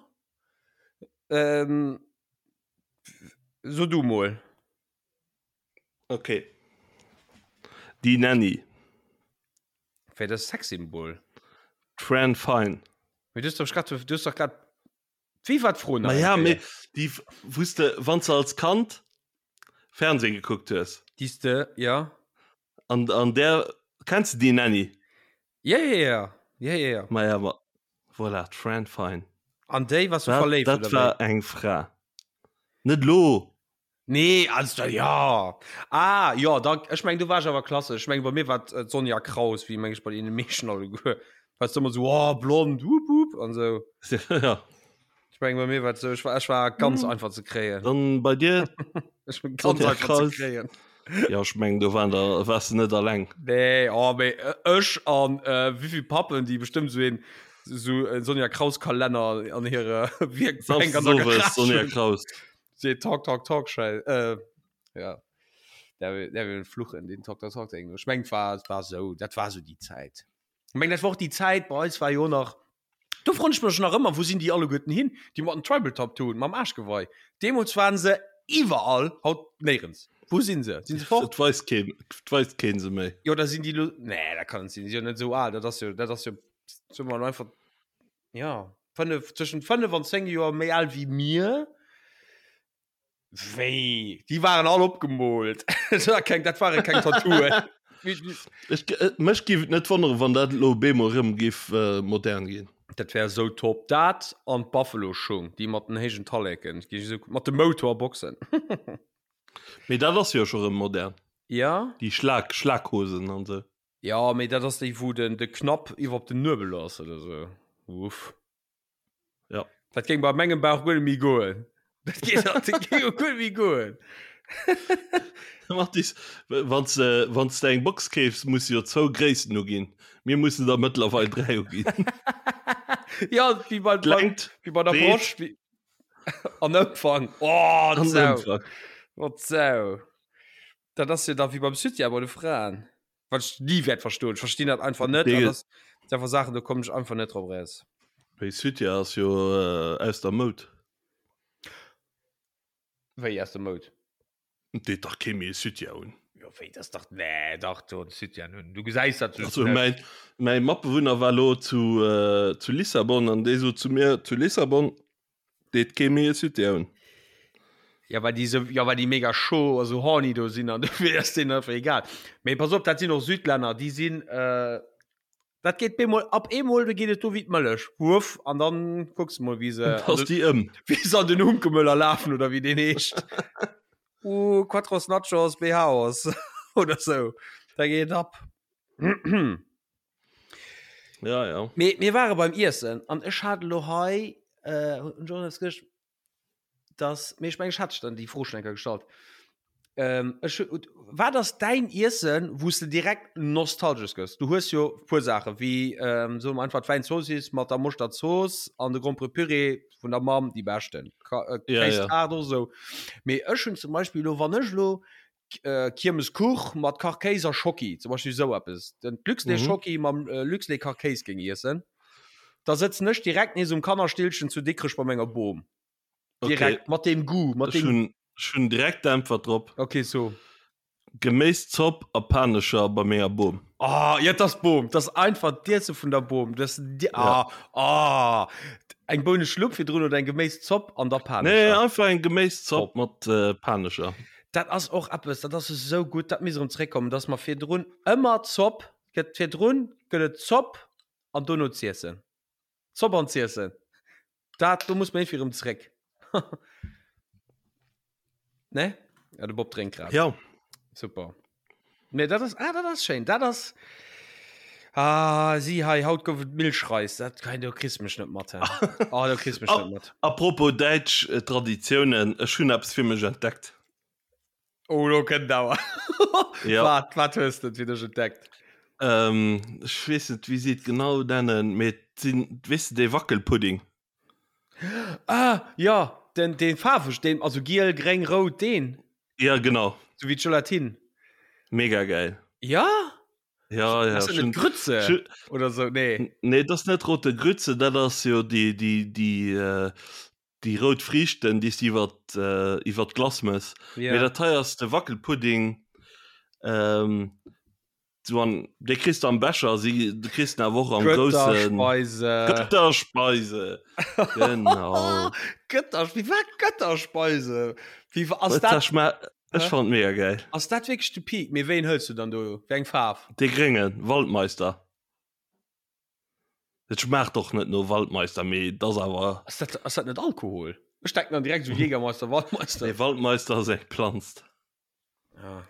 Ähm, so du mol. Okay. Déi Nanny. Wéi dat Sexsymbol? D'Fran Fine. Mee du hues doch grad, du hues doch grad, wéi war d'Fro nach Ma ja, eng mee Kéier? déi, wous de, wann s de als Kand Fernsehen gekuckt hues. Déi s de, ja. An, an där, kenns de déi Nanny? Ja, ja, ja, ja, ja, ja. Ma ja, ma voilà, d'Fran Fine. An déi warst du Dat, verléift, dat oder war wéi? eng Fra. Net lo! Nee, also ja. Ah, ja, da, ech meng, du warst awer klassesch. Ech meng, bei mir war et d'Sonja Kraus, wéi meng ech bei deene meeschten alleguer. Warst du ëmmer sou, oh, blond, wup, wup, an sou. Ja. Ech meng, bei mir war et sou, ech war, ech war ganz einfach ze kréien. Dann bei dir? Ech bin ganz Sonja einfach ze Kraus. kréien. Ja, ech meng, do waren der, wars de net alleng. Nee, oh, mee ech an äh, wéivill Pappen, déi bestëmmt sou een, sou en Sonja Kraus Kalenner an hire Wierkbänk an der Samsdes owes, Garage Sonja hunn. Kraus. Se talk talk talk schei äh, ja der der will fluchen den talk talk talk Ding. Ech meng war war so dat war so die Zäit. Ich meng dat war och die Zäit bei eis war jo nach do froen ech mech nach ëmmer wou sinn déi alleguerten hin déi mat den Tribal Tattooen mam Aarschgeweih. Deemools waren se iwwerall haut néierens. Wou sinn se? Sinn se fort? Et weist keen et weist keen se méi. Jo da sinn déi lo nee dat kann net sinn, si sinn jo net esou al dat ass jo dat ass jo soe mer einfach ja 5 zwëschen 5 an 10 Joer méi al wéi mir. Wéi déi waren all opgemoolt keng dat ware keng Tattooen. Ech mech giff et net wonneren wann dat elo bemol rëm giff modern ginn. Dat wär esou top dat an d'Buffalo Schung déi mat den héijen Talleken mat de Motorboxen. Mee dat ass jo scho rëm modern. Ja déi Schlag Schlaghosen an sou. Ja, mee dat ass déi wou den de Knapp iwwer op den Nuebel ass oder sou. Uff. Ja. Dat géing bei mengem Bauch guer net méi goen. Dat geet dat géing jo guer net méi goen. Mathis, wann s wann s de eng Box keefs, muss de jo zwou Gréissten uginn. Mir mussen der mëttlerweil 3 uginn. Ja, wéi bei, bei, D'Längt, wéi bei der d'Breet Broscht. Wéi, an Ëmfang. Oh, an Sau. Ëmfang. Oh, Sau. Dat ass jo da wéi beim Soutien bei de Fraen. Wat ech ni wäert verstoen. Ech verstinn dat einfach net. An Dee, das sind einfach Sachen, do kommen ech einfach net drop raus. wéi Soutien ass jo äh, aus der Moud. Wéi aus der Moud? Et deet dach kee méi e Soutien un. Jo, wéi, das dach, nee, dach, do en Soutien un. Du gesäis dat just Also net. mäin, mäi Matbewunner war lo zu, äh, zu Lissabon an dee sot zu mir, zu Lissabon deet kee méi e Soutien un. Ja, well déi sou, ja, well déi mega chaud a sou horny do sinn an dofir ass deenen einfach egal. Mee pass op, dat sinn och Südlänner, déi sinn, äh, Dat geet bemol ab eemol, do geet et do wéi d'Mëllech, wuff, an dann kucks de mol wéi se an Ass den, déi ëm. wéi se an den Hunkemöller lafen oder wéi deen heescht. Uh, Quattros Nachos Behaos oder sou. Da geet et ab. Ja, ja. Mee mir ware beim Iessen an ech hat elo hei, äh, hunn ech och nach gëscht, dass mee ech mengen ech hat dech dann déi Fro schon eng Kéier gestallt. Ähm, ech wat ass däin Iessen, wou s de direkt nostalgesch gëss? Du hues jo puer Saache wéi ähm, soe mer einfach d'Wäinzoossiss mat der Moschterzooss an de Gromperepüree vun der Mamm, déi beschten. Ka äh, Ja, ja. Kéistaart och esou. Mee ech hunn zum Beispill elo, wann ech elo äh, Kiermeskuch mat Kachkéis a Schocki, zum Beispill esou eppes, den Luxlait Mhm. Schocki mam äh, Luxlait Kachkéis géing iessen, da sëtzen ech direkt nees um Kannerstillchen zu Dikrech bei menger Bom. Direkt Okay. mat deem Goût, mat Ech deem. hunn, ech hunn direkt d'Äntwert drop. Okay, so. Geméiszopp a Panescher bei menger Bom. Oh, ja, das Bom, das einfach d'Iesse vun der Bom. Das, die, Ja. ah, ah. Eng Bouneschlupp virdrun oder eng Geméiszopp an der Nee, Panescher. einfach eng Geméiszopp Top. mat äh, Panescher. Dat ass och eppes, dat ass esou gutt, dat misst erëm zréckkommen, dass mer virdrun ëmmer Zopp gëtt virdrun gëtt et Zopp an dono z'iessen. Zopp an z'iessen. Dat do muss mer iergendwéi erëm zréck. Ne? Ja, de Bob drénkt grad. Ja. Super. Nee, dat ass, ah, dat ass schéin. Dat ass, ah, si hei, haut gouf et Milchreis. Dat kann, do kriss mech net mat. Ah, do kriss mech net mat. Apropos däitsch äh, Traditiounen, ech hunn eppes fir mech entdeckt. Oh, lo kënnt awer. Ja. Wat, wat hues de fir dech entdeckt? Ähm, ech weess net, wéi si et genau nennen, mee et sinn, weess de, dee Wackelpudding. Ah, ja, den, den faarweg, den, also giel, gréng, rout, deen. Ja, genau. So wéi d'Gelatine. Mega geil. Ja? Ja, ja. Ass dat net Grütze Schön, oder so? Nee. Nee, dat ass net rote Grütze, dat ass jo déi, déi, déi, äh, déi rout Friichten, déi s de iwwer, äh, iwwer d'Glace mëss. Ja. Mee dat hei ass de Wackelpudding. Ähm, So an dee kriss de am Becher, si du kriss den awer och am groussen Götterspeise. Götterspeise. Genau. Götter, wie war Götterspeise? Wie war, ass dat, Schma ech Hä? fand mega geil. ass dat wierklech de Peak? Mee wéin hëls du dann do? Wéi eng Faarf? Dee gréngen Waldmeister. Et schmaacht och net no Waldmeister, mee et ass awer. Ass dat, ass dat net Alkohol? Ech denken dann direkt sou Jägermeister, Waldmeister. Nee, Waldmeister ass eng Planz. Ah.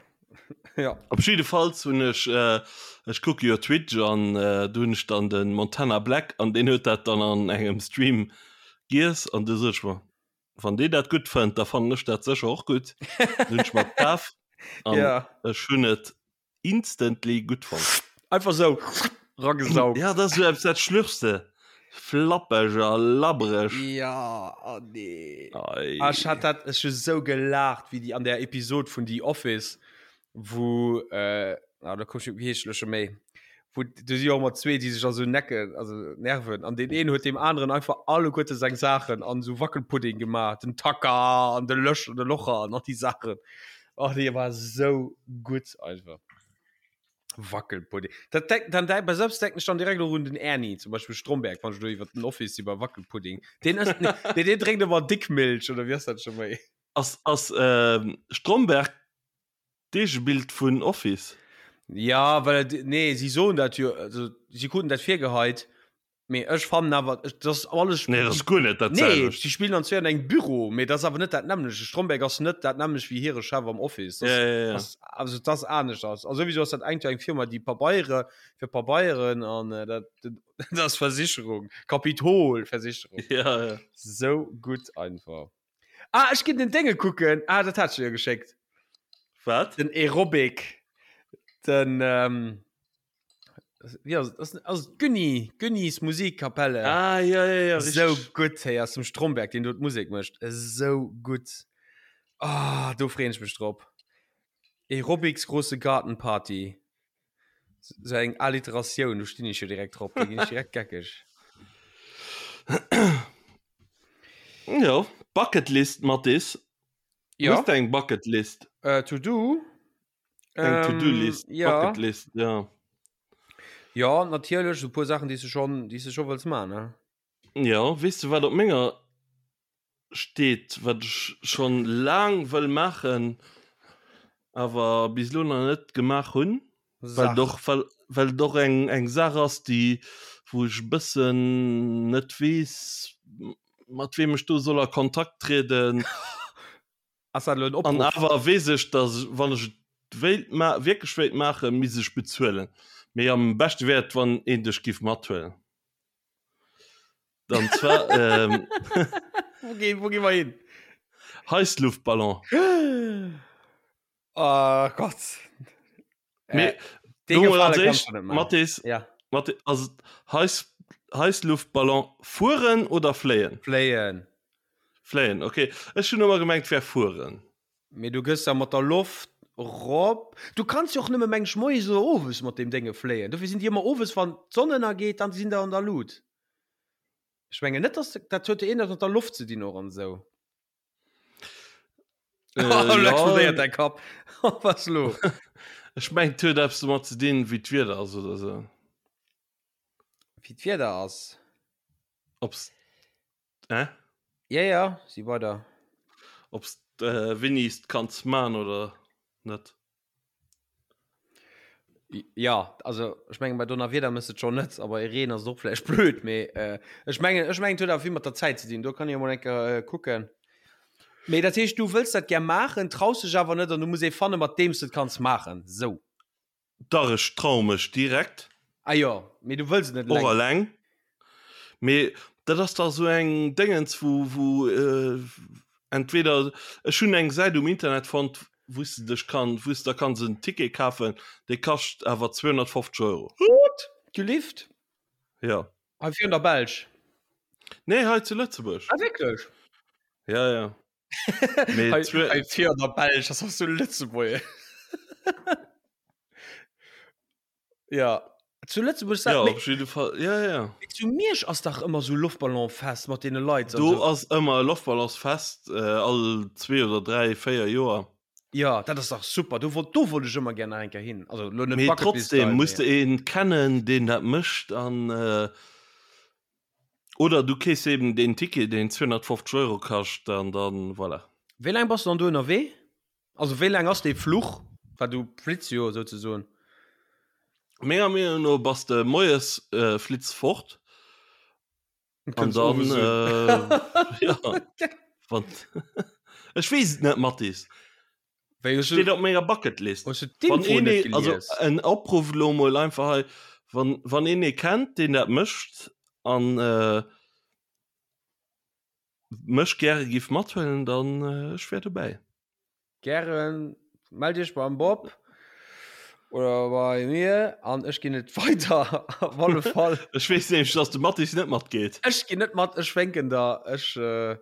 Ja. Op jiddefalls hunn ech, äh, ech kucke jo Twitch an äh, do hunn ech dann den Montana Black an deen huet dat dann an engem Stream giess an du sot ech mer, wann dee dat gutt fënnt, da fannen ech dat sécher och gutt. Dann hunn ech mer kaf an Ja. ech hunn et instantly gutt fonnt. Einfach sou ragesaugt. Ja, dat ass esou eppes, dat schlürfs de. Flappeg a labbereg. Ja, oh nee. Ei. Ah, ech hat dat, ech hu sou gelaacht, wéi déi an der Episod vun The Office, wou, äh, ah, da komm ech, wéi heescht elo scho méi, wou, do si jo och ëmmer zwee, déi sech da sou necken, also nerven, an deen een huet deem aneren einfach alleguerte seng Saachen an esou Wackelpudding gemaach, den Tacker an de Lösch, de Locher an all déi Saachen. Oh, dee war sou gutt einfach. Wackelpudding. Dat denk, dann denk, bei selbst denken ich dann direkt och un den Ernie, zum Beispiel Stromberg, wann ich do iwwer den Office iwwer Wackelpudding. Den ësst ne, nee, den drénkt ëmmer Dickmilch oder wie ass dat schon méi? Ass, ass ähm, Stromberg d'Eegebild vun Office? Ja, well et, nee, si soen dat jo, also si kruten dat virgeheit, Mee ech fannen awer, dat ass alles. Nee, dat ass guer net dat Nee, selwecht. si spillen an zwee an engem Büro, mee dat ass awer net dat nämmlecht. De Stromberg ass net dat nämmlecht wéi hire Chef am Office. Dat Ja, ja, ja. ass, also dat ass anescht. A souwisou ass dat engt jo eng Firma, déi Pabeiere fir Pabeieren an dat, dat ass Versicherung, Kapitol-Versicherung. Ja, ja. Sou gutt einfach. Ah, ech ginn den Dénge kucken. Ah, dat hat ech dir jo geschéckt. Wat? Den Aerobic. Den ähm, wie ass, ass, ass Günni, Günnis Musikkapelle. Ah, ja, ja, ja, richtig. So gutt, hey, aus dem Stromberg, den do d'Musek mécht. Esou gutt. Ah, do freeën ech mech drop. Aerobics große Gartenparty. So eng Alliteratioun, do stinn ech jo direkt drop, do ginn ech direkt geckeg. Jo, Bucketlist, Mathis. Ja. Hues de eng Bucketlist? Äh, to do. Eng To-Do-List, Ähm, ja. Bucketlist, ja. Ja, natierlech, so puer Saachen, déi s de schon, déi s de scho wëlls man, ne? Ja, weess de wat op menger steet, wat ech schon laang wëll maachen, awer bis elo nach net gemaach hunn, well et och, well, well et och eng, eng Saach ass, déi, wou ech e bëssen net weess, mat weem ech do soll a Kontakt trieden. Ass dat elo en An Opruff? awer weess ech, dass wann ech et wéilt ma wierklech wéilt maachen, misst ech bezuelen. Mee am beschte wär et, wann een dech giff mathuelen. An zwar ähm, Wo gi, wo gi mer hin? Heissluftballon. Oh Gott. Mee Äh, dee do mol Gefale als kannst éischt, du net maachen. Mathis, Ja, Mathi- ass et Heiss, Heissluftballon fueren oder fléien? fléien. Fléien, okay. Ech hunn ëmmer gemengt, wär fueren. Mee du gëss da mat der Loft rop. Du kanns jo och nëmme meng ech moies oder owes mat deem Dénge fléien. Dofir sinn déi ëmmer owes, wann d'Sonn ënnergeet, dann sinn der an der Lut. Ech mengen net, dass de, dat huet jo iergendwas mat der Loft ze dinn och an esou. Äh, Lo ja. explodéiert däi Kapp. Was lo? Ech mengen, et huet eppes domat ze dinn, wéi d'Wieder ass oder esou. Wéi d'Wieder ass? Ob's, hä? Ja, ja, si weider. Ob's äh, wéini s d'kanns man oder net. Ja, also ech mengen bei Donnerwieder mëss et schon net, aber e Reen ass et och vläicht blöd, mee äh, ech mengen ech mengen et huet awer vill mat der Zäit ze dinn, do kann ech emol eng Kéier äh, kucken. Mee dat heescht du wëlls dat gär maachen, traus dech awer net an du muss ee fanne mat deem s de et kanns maachen, sou. Dach ech traue mech direkt. Ah jo, mee du wëlls et net Och eleng. eleng. Mee dat ass dach esou eng Déngens wou wou entweder ech hunn eng Säit um Internet fonnt wou s de dech kann wou s de der kanns en Ticket kafen, dee kascht awer 250 Euro. What? Du Lift? Jo. Hei virun der Belsch? Nee, hei zu Lëtzebuerg. Ah wierklech? Ja, ja. Mee Hei, zwee- hei virun der Belsch, das ass zu Lëtzebuerg. Ja. Zu Lëtzebuerg Ja, mee op jidde Fall. Ja, ja. zu Miersch ass dach ëmmer sou Loftballonfest mat deene Leit an Do sou. ass ëmmer e Loftballonsfest, äh, all zwee oder dräi, véier Joer. Ja, dat ass dach super. Do wollt, do wollt ech ëmmer gär nach eng Kéier hin. Also lo net Mee Bucketlist trotzdem Style, muss mee. de een kennen, deen dat mécht an äh, oder du keefs eben deen Ticket, deen 250 Euro kascht an dann voilà. Wéi laang bass du dann do ënnerwee? Also wéi laang ass dee Fluch? Well du flitts jo souzesoen. Menger Meenung no bass de moies äh, flitts fort Und an kënns dann owes un. äh, ja, wann Ech weess et net, Mathis. Wéi hues du Steet op menger Bucketlist. hues du Wann d'Info een net ee, also gelies? en Opruff lo mol einfach hei, wann, wann een ee kennt, deen dat mécht an äh, mech gäre giff mathuelen, dann äh, ech wär dobäi. Gären, mellt iech beim Bob oder bei mir an ech ginn et weider op alle Fall. Ech weess nämlech, dass de Mathis net matgeet. Ech ginn net mat, ech wénken der, ech äh,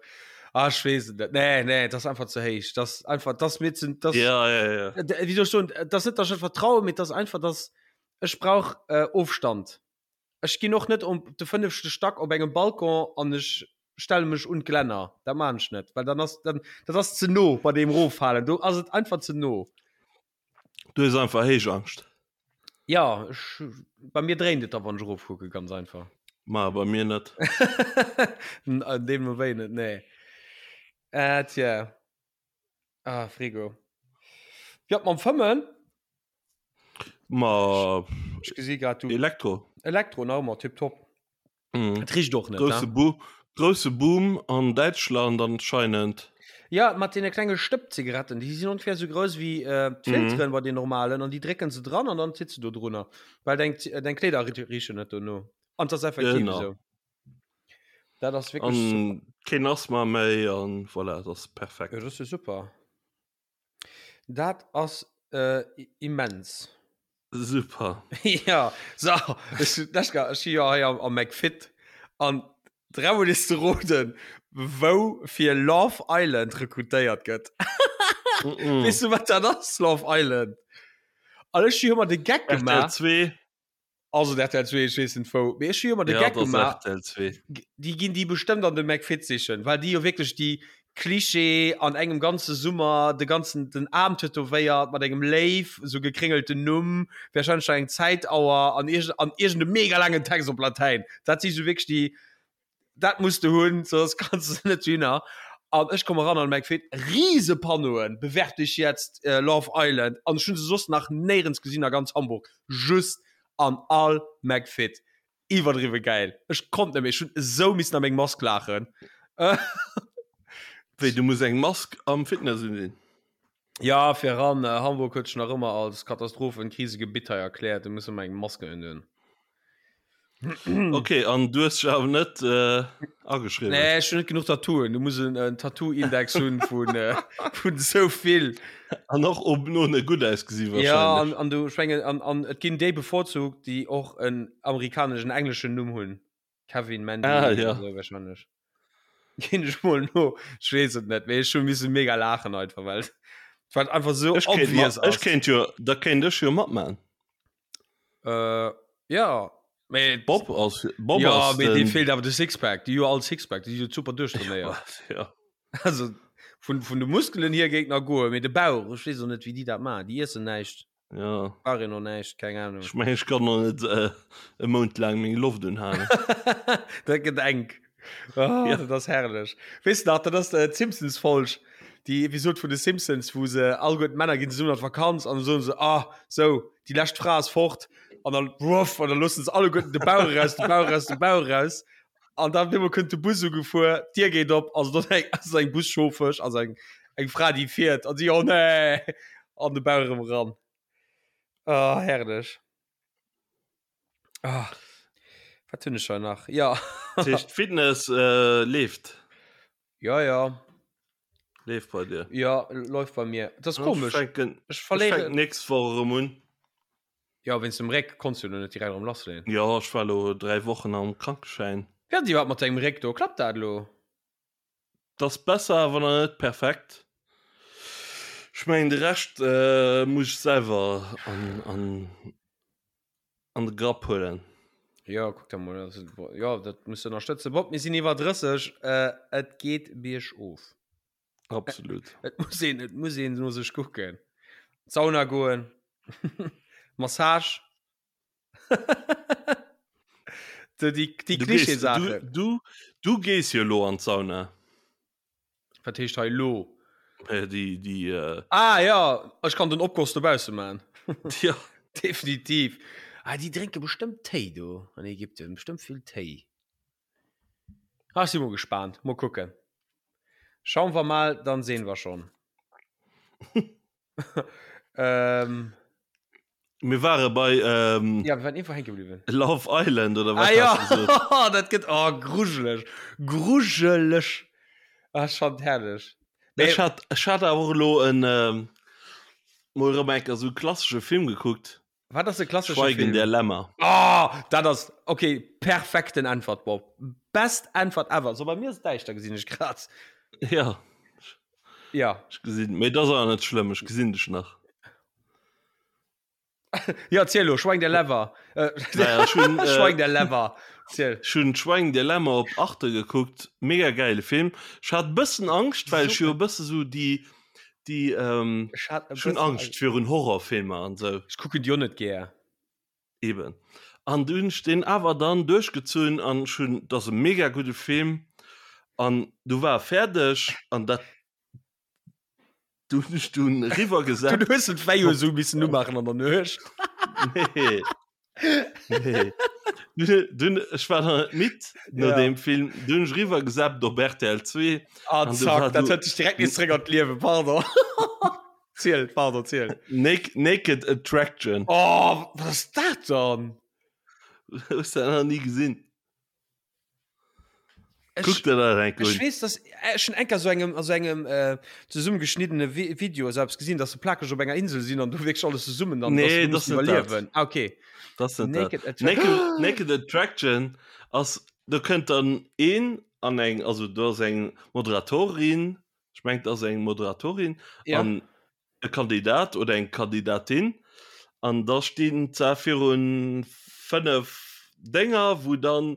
ah, ech weess et net. Nee, nee, dat ass einfach ze héich. Dat ass einfach, dat ass mir ze, dat Ja, ja, ja. Wéi soll ech soen, dat ass net, dass ech net vertraue, mee dat ass einfach, dass ech brauch äh, Ofstand. Ech ginn och net op de fënnefte Stack op engem Balcon an ech stelle mech un d'Glänner. Dat maan ech net, well dann ass dann dat ass ze no bei deem Roffalen. Do ass et einfach ze no. Du hues einfach Héichangscht. Ja, ech, bei mir dréint et da wann ech erofkucke, ganz einfach. Ma bei mir net. Deemno wéi net, nee. Äh, tja. Ah, Frigo. Ja, mam Fëmmen. Ma Ech gesi grad du. Elektro. Elektro nach ëmmer tipptopp. Mhm. Et richt och net. Grousse Ne? Bo grousse Boom an Däitschland anscheinend. Ja, mat deene klenge Stëppzigaretten, déi sinn ongefähr sou grouss wéi äh, d'Filteren mhm. bei den normalen an déi drécken se dran an dann sitze du drunner, well deng, deng Kleeder richen net dono. An das effektiv Genau. esou. Dat ass wierklech super. An keen Asthma méi an voilà, dat ass perfekt. Ja, das ist super. Dat ass immens. Super. Ja, so, ech, ech si jo hei am, am McFit an dreimal is ze roden, wou fir Love Island rekrutéiert gëtt. Mm -mm. Weess du, wat dat ass, Love Island? An ech hu ëmmer de Geck RTL gemaach. 2. Also RTL 2, ech weess net wou. Mee ech hu ëmmer de Ja, Geck dat ass gemaach. RTL 2. Déi ginn déi bestëmmt an de McFit sichen, well déi jo wierklech déi Klischee an engem ganze Summer de ganzen den Aarm tätowéiert mat engem Léiw, sou gekréngelten Numm, warscheinlech nach eng Zäitauer an iergend an iergend e mega laangen Text op Latäin. Dat si sou wierklech déi, dat muss de hunn, soss kanns de net dohinner. An ech komme ran an de McFit, rise Panneauen, Bewerb dich jetzt, Love Island, an ech hunn se soss nach néierens gesinn a ganz Hamburg, just an all McFit. Iwwerdriwwe gäil. Ech konnt net méi, ech hunn esou missen a meng Mask laachen. Wéi, du muss eng Mask am Fitness unsin? Ja, fir eran. Hamburg huet sech nach ëmmer als Katastrophen-Krisegebitt hei erkläert, do muss ëmmer eng Mask unhunn. Ok, an du hues dech awer net ageschriwwen? Nee, ech hunn net genuch Tattooen. Du muss en Tattoo-Index hunn vun vun esou vill. An och oben ohne gutt ausgesi Ja, wahrscheinlech. an, an du, ech mengen, an, an et ginn déi bevorzugt, déi och en amerikaneschen, engleschen Numm hunn. Kevin, Mandy, Ah, ja. esou wahrscheinlech. Ginn ech mol no, ech weess et net, mee ech hu misse mega laachen einfach, well et war einfach sou Ech kéint obvious mat, ech ass. kéint jo, da kéint ech jo matman. Äh, ja, mee Bob ass, Bob ja, ass mee dee den, feelt awer de Sixpack. Déi hu jo all Sixpack, déi si jo super duerchtrainéiert. ja. Also vun, vun de Muskelen hier géing nach goen, mee de Bauch, ech weess och net, wéi déi dat maachen. Déi iessen näischt, Ja. brauch een och näischt, keng Ahnung. Ech mengen, ech kann noch net äh, e Mount laang meng Loft unhalen. Dat gëtt enk. Oh, Ja. Dat ass herrlech. Weess de nach, dat ass äh, d'Simpsons-Folg, déi Episod vun de Simpsons, wou se alleguer d'Männer ginn zesummen an d'Vakanz an da soen se, ah, sou, déi lescht Fra ass fort an dann wuff an dann loossen se alleguerten de Bauch eraus, de Bauch eraus, de Bauch eraus an dann op eemol kënnt de Bus ugefuer, d'Dier geet op, also dort eng, ass eng Buschauffesch, also eng, eng Fra, déi fiert an si, oh nee, an de Bauch erëm eran. Oh, herrlech. Ah, wat hunn ech hei nach? Ja. Dat heescht, Fitness äh, leeft. Ja, ja. Leeft bei dir. Ja, läuft bei mir. Das ist komisch. Ech fänken, Ech ech verléiere. fänken nächst Woch erëm un. Ja, wéinst dem Réck konns du lo net direkt erëm lassleeën. Ja, ech war lo 3 Wochen am Krankeschäin. Wéi ass iwwerhaapt mat dengem Réck do? Klappt dat elo? 't ass besser, awer nach net perfekt. Ech mengen de Rescht muss ech selwer an an an de Grapp huelen. Jo, kuck da mol, also jo, dat muss de ënnerstëtzen. Bob, mir sinn iwwer 30, et geet biergof. Absolut. Et muss een, et muss een no sech kucken. Sauna goen, Massage. Déi, déi Klischee-Saachen. Du, du, du gees jo elo an d'Sauna. Wat heescht hei lo? Äh, déi, déi, äh... Ah ja, ech kann den Opgoss dobausse man. Ja. Definitiv. Ah, déi drénke bestëmmt Téi do an Ägypten, bestëmmt vill Téi. Ah, ech si mol gespaant, mol kucken. Schauen wir mal, dann sehen wir schon. ähm, Mir ware bei ähm, ja, wir waren irgendwo hängen geblieben. Love Island oder was Ah, ja. hast du gesagt? dat gëtt oh, grujeleg. Grujeleg. Ah, schon herrlech. Ech hat, ech hat awer och elo en ähm, mol erëm eng Kéier esou e klassesche Film gekuckt. Wat ass e klassesche Schweigen Film? der Lämmer. Oh, dat ass okay, perfekten Äntwert, Bob. Best Äntwert ever. So bei mir ass däischter gesinn ech grad. Ja. Ja. Ech gesinn, mee dat ass awer net schlëmm, ech gesinn dech nach. Ja, ziel lo, Schweigen der Lämmer. Äh, Naja, ech hunn, äh, Schweigen der Lämmer. Ziel. Ech hunn Schweigen der Lämmer op Arte gekuckt, mega gäile Film. Ech hat e bëssen Angscht, well ech jo e bësse sou déi, déi, ähm, Ech hat e ech hunn bëssen Angscht virun Horrorfilmer an sou. Ech kucken déi och net gär. Eben. An du hunn ech deen awer dann duerchgezunn an ech hunn, dat ass e mega gudde Film an du war e fäerdeg an dat, du hunn ech dunn eriwwer Du gesappt. hues den d'Veilleuse esou missen umaachen an der Nuecht. Nee. Nee. Dunn, dunn, ech war nach net midd no Ja. deem Film, du hunn ech eriwwer gesappt op rtl 2 Ah, an du zack, war dat du huet dech direkt nees zréck an d'Liewen, pardon. Ziel, pardon, ziel. Nak Naked Attraction. Oh, wat ass dat dann? Hues du dat nach ni gesinn? Kuck der dat enk Ech un. weess, dass ech schon enker so engem a so engem äh, zesummegeschniddene Vi Video esou eppes gesinn, dass se plakeg op enger Insel sinn an du wierklech alles zesummen an Nee, dass das se net mussen dat. iwwerliewen. Ah, okay. Das net dat. Naked Attraction. Naked, Naked Attraction ass, do kënnt dann een an eng, also do ass eng Moderatorin, ech mengen et ass eng Moderatorin, Ja. an e Kandidat oder eng Kandidatin an da stinn zwar virun 5 Dénger, wou dann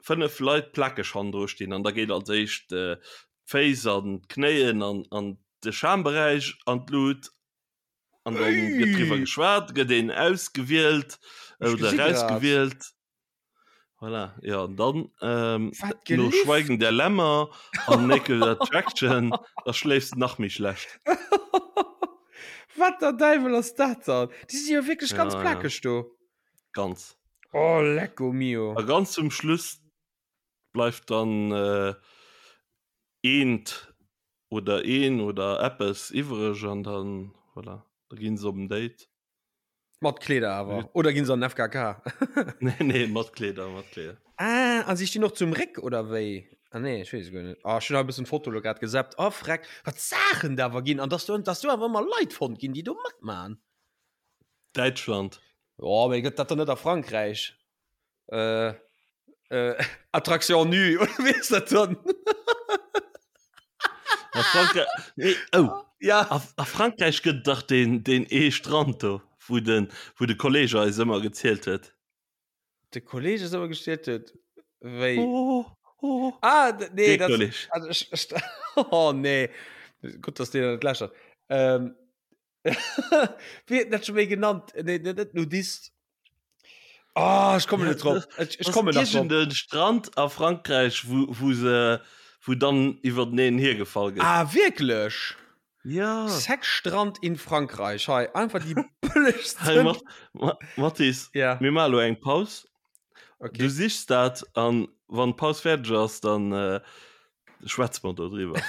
5 Leit plakeg hannendru stinn an da geet als éischt d'Féiss an d'Knéien an an de Schamberäich an d'Lut an dann gëtt driwwer geschwat, gëtt een ausgewielt oder erausgewielt. Voilà, ja, an dann ähm, Wat no gelift? Schweigen der Lämmer an Naked Attraction, da schléifs de nach méi schlecht. Wat der Däiwel ass dat dann? Déi si jo wierklech ganz Ja, ja. plakeg do. Ganz. Oh, lecko mio. A ganz zum Schluss bleift dann äh, eent oder een oder eppes iwwereg an dann, voilà, da ginn se op en Date. Mat Kleeder awer oder ginn se an den FKK? Nee, nee, mat Kleeder, mat Kleeder. Ah, an si stinn och zum Réck oder wéi? Ah nee, ech weess et guer net. Ah, ech hunn hei e bëssen d'Foto lo grad gesappt. Oh freck, wat d'Saachen da awer ginn an dass do, dass do awer ëmmer Leit fonnt ginn, déi do matman. Däitschland. Jo, mee gëtt dat dann net a Frankräich? Äh, äh, Attraction nue, oder wéi ass dat dann? A Frankräich, nee, oh. Ja. A, a Frankräich gëtt dach deen, deen ee Strand do, wou den, wou de Kolleg eis ëmmer gezielt huet. De Kolleg eis ëmmer gezielt huet? Wéi? Oh, oh. Ah, d- nee, Dee dat, Kolleg. also ech, ech, oh nee. Gutt, dass deen net lächert. Ähm, Wéi huet en dat scho méi genannt? Nee, net, net Nudist. Oh, ech kommen net drop. Ech, ech kommen nach drop. Den Strand a Frankräich, wou, wou se, wou dann iwwerteneen hiergefall gëtt. Ah, wierklech? Ja. Sexstrand in Frankreich. Hei, einfach déi bëllegsten. Hey, Mat, Ma, Mathis, Ja. mir maache lo eng Paus. Okay. Du sichs dat an wann d'Paus fäerdeg ass, dann äh, schwätze mer do driwwer.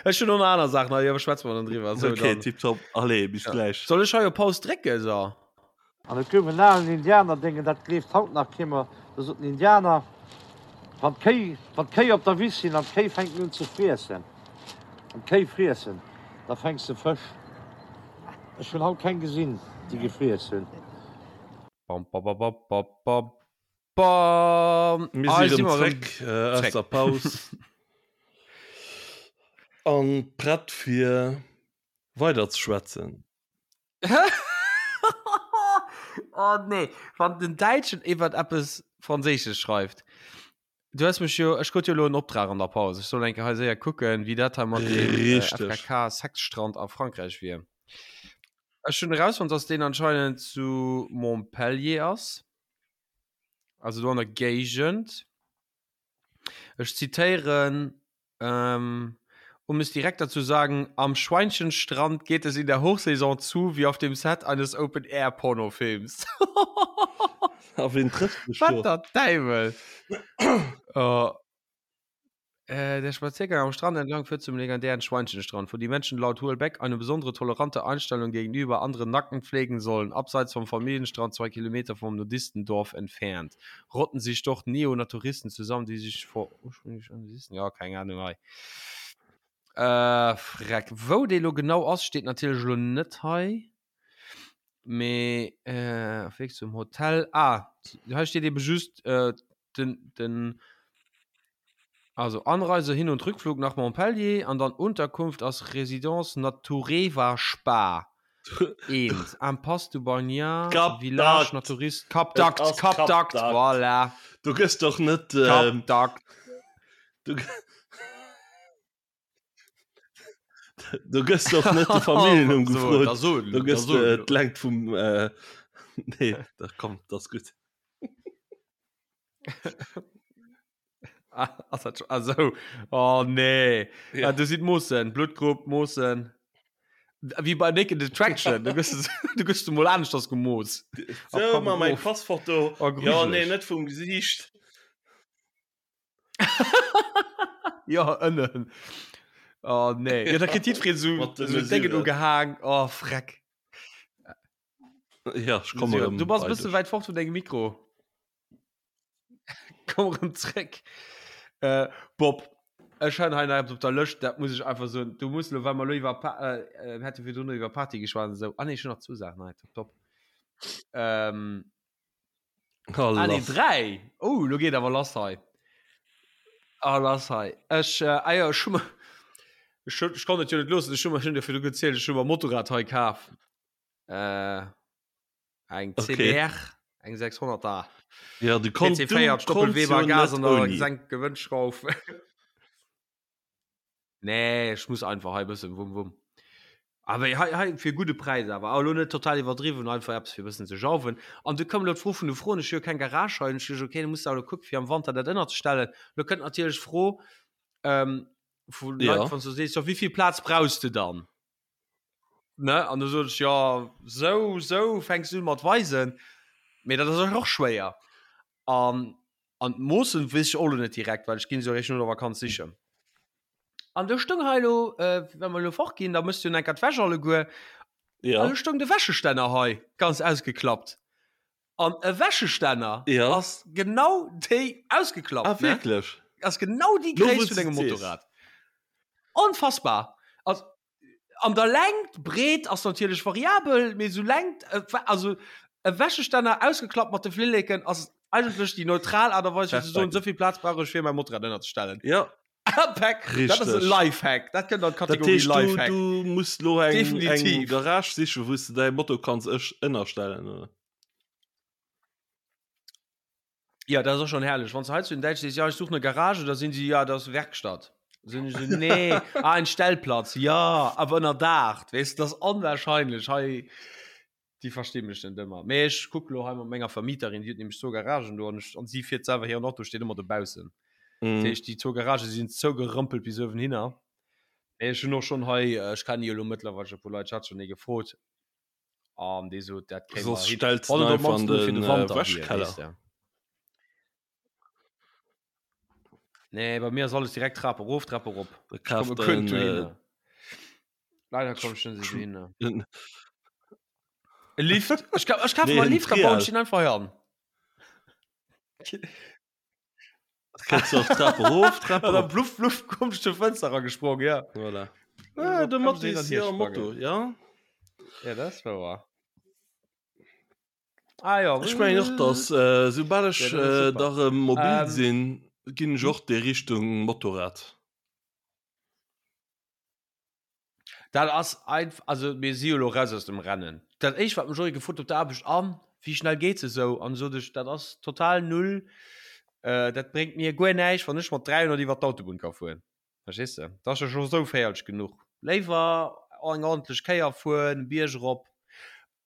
Ech hunn och nach aner Saachen hei, awer schwätze mer dann driwwer. So, okay, dann. tipptopp. Allez, bis Ja. gläich. Soll ech hei op Paus drécken, so? An et gouf en alen Indianerdéngen, dat gleeft haut nach kee mer, do sot den Indianer, Wann d'Kéi, wann d'Kéi op der Wiss sinn an d'Kéi fänken un ze friessen, an d'Kéi friessen, da fänks de Fësch. Ech hunn haut keng gesinn, déi gefriess hunn. Bam, bam, bam, bam, bam, bam, bam. Mir Ah, si si rëm mer rëm zréck äh, aus zréck. der Paus an prett fir weider ze schwätzen. Oh nee, wann den Däitschen iwwert eppes Franséisches schreift. Du hues mech jo, ech krut jo elo en Optrag an der Paus, ech soll eng Kéier hei séier kucken, wéi dat hei mat deem äh, Richteg. FKK Sexstrand a Frankräich wier. Ech hunn erausfonnt, dass deen anscheinend zu Montpellier ass, also do an der Géigend. Ech zitéieren, ähm, Um es direkter zu sagen, am Schweinchenstrand geht es in der Hochsaison zu wie auf dem Set eines Open-Air-Pornofilms. A ween trëfft sech do? Wat der Däiwel! Oh. Äh, der Spaziergang am Strand entlang führt zum legendären Schweinchenstrand, wo die Menschen laut Houellebecq eine besondere tolerante Einstellung gegenüber anderen Nackten pflegen sollen. Abseits vom Familienstrand, zwei Kilometer vom Nudistendorf entfernt, rotten sich dort Neonaturisten zusammen, die sich vor ursprünglich Nudisten, ja, keng Ahnung hei. Äh, freck. Wou dee lo genau ass, steet natierlech elo net hei. Mee äh, auf Weg zum Hotel. Ah, hei steet eben just äh, den, den also Anreise, Hin- und Rückflug nach Montpellier an dann Unterkunft ass Résidence Natureva Spa. Eent. Impasse du Bagnat, Cap Village d'Agde. Naturiste, Cap Et d'Agde, ass Cap Cap d'Agde, d'Agde. voilà. Du gëss doch net Cap ähm, d'Agde. du, Du gëss doch net de Familljennumm gefrot. Da so, Du gëss da so. äh, d'Längt vum äh, Nee, da komm, das gutt. Ah, ass dat schon, ah, so. Oh nee. Ja. Ah, du sieht Moossen, Blutgrupp, Moossen. Wie bei Naked Attraction. Du gëss, du gëss du mol anescht das gemooss. So, komm, ma mein of. Passfoto. Oh, Ja, nee, grujeleg. net vum Gesiicht. Ja, ënnen. Oh nee. Ja, da kritt jiddwereen so, Mat de so Déngen Mesuren. ugehaang. Oh, freck. Ja, ech komme Mesure. rëm Du bass e bei bësse dech. wäit fort vun dengem Mikro. Komm erëm zréck. Äh, Bob, ech han hei nach eppes op der Lëscht, dat muss ech einfach soen. Du muss lo, well mer lo iwwer Pa- äh, äh, mir hate virdrun iwwer Party geschwat an esou. Ah nee, ech hunn nach zwou Saachen hei, top, top. Ähm, Oh, ah nee, lass. dräi! Oh, lo geet awer lass hei. Ah, lass hei. Ech, äh, ah jo, ech hu mer, ech hu, ech konnt et jo net loossen, ech hu mer, ech hunn dir virdru gezielt, ech hu mer e Motorrad hei kaf. Äh, Eng Okay. CBR, eng 600 er. Ja, du konnt, du PC4, konntst Doppelweber, jo Gas net an der ouni. Senkgewënnschrauf. Nee, ech muss einfach hei bëssen wumm wumm. Awer hei, hei fir gudde Präis awer. Awer lo net total iwwerdriwwen, einfach eppes fir bëssen ze jauwen. An du koum lo d'Fro vun de Froen, ech hu jo keng Garage hei, an ech duecht, okay, du muss da lo kucken, fir am Wanter dat ënnerzestellen. Lo kënnt natierlech d'Fro ähm, vu Leit, Ja. wann s du sees, jo, wéi vill Plaz brauchs de dann? Ne? An du sot ech, ja, sou, sou fänks du un mat weisen. Mee dat ass och schwéier. An, an d'Moossen weess ech och lo net direkt, well ech ginn se jo eréischt no der Vakanz sichen. An do stoung hei lo, äh, wa mer lo fort ginn, da mëss du jo enker d'Wäsch alleguer. Ja. An do stoung de Wäschestänner hei, ganz ausgeklappt. An e Wäschestänner ja. ass genau déi ausgeklappt. Ah, wierklech? Ass genau déi Gréisst vun dengem Motorrad. Onfassbar. Also, an der Längt, Breet ass natierlech variabel, mee sou Längt, also e Wäschestänner ausgeklappt mat de Flilleken ass eigentlech déi neutral Aart a Weis fir ze soen, esou vill Plaz brauch ech fir mäi Motorrad ënnerzestellen. Ja. Pack, dat ass e Lifehack, dat kënnt an d'Kategorie Lifehack. Du muss lo eng, eng Garage sichen, wou s de däi Moto kanns ech ënnerstellen, oder? Ja, dat ass och schon herrlech. Wann s du hei zu den Däitschen sees, ja, ich suche eine Garage, da sinn si, ja, das ist Werkstatt. Sinn ech so, nee, ah, ein Stellplatz, ja, awer ënner Daach, weess du, das ass onwahrscheinlech hei. Déi versti mech net ëmmer. Mee ech kuck lo hei mat menger Vermieterin, déi huet nämlech zwou Garagen do an ech, an si fiert selwer, hiren Auto steet ëmmer dobaussen. Mm. Dat heescht, déi zwou Garagë sinn zougerëmpelt bis uewenhinner. Mee ech hunn och schonn hei, ech kenne jo lo mëttlerweil e puer Leit, ech hat schonn ee gefrot an dee sot, dat kréie mer Soss hin. stells Wann de et op einfach an d'mannst nëmme fir den de äh, Wanter wier, Wäschkeller. weess de. Nee, bei mir ass alles direkt Trap erof, Trap erop. Da Ich komme kaaft kënnt en, äh, dohinner. Leider komm ich net dohinner. en E Lift. Ech ka ech kafe Nee, mer e en Lift, da bauen ech Trial. den einfach hei an. Kënns du och Trap erof, Trap An dann erop. bluff, bluff, komm ich zur Fenster eragesprongen, ja. Voilà. Ja, Ah, de kann Matti ich ist hier am sprangen. Motto, ja. Ja, das war wahr. Ah ja. Ech mengen och, dass äh, soubal ech Ja, dat ass äh, super. da rëm mobil Ähm, sinn, ginn ech och déi Richtung Motorrad. Dat ass einf also mir si jo lo raus aus dem Rennen. Dat éischt wat mech och gefrot op der Aarbecht an wéi schnell geet se esou an sot ech dat ass total null äh, dat bréngt mir guer näischt wann ech mat 300 iwwer d'Autobunn ka fueren. Verstees de? Dat ass jo scho sou féierlech genuch. Léiwer eng ordentlech Kéier fueren, Bierg erop.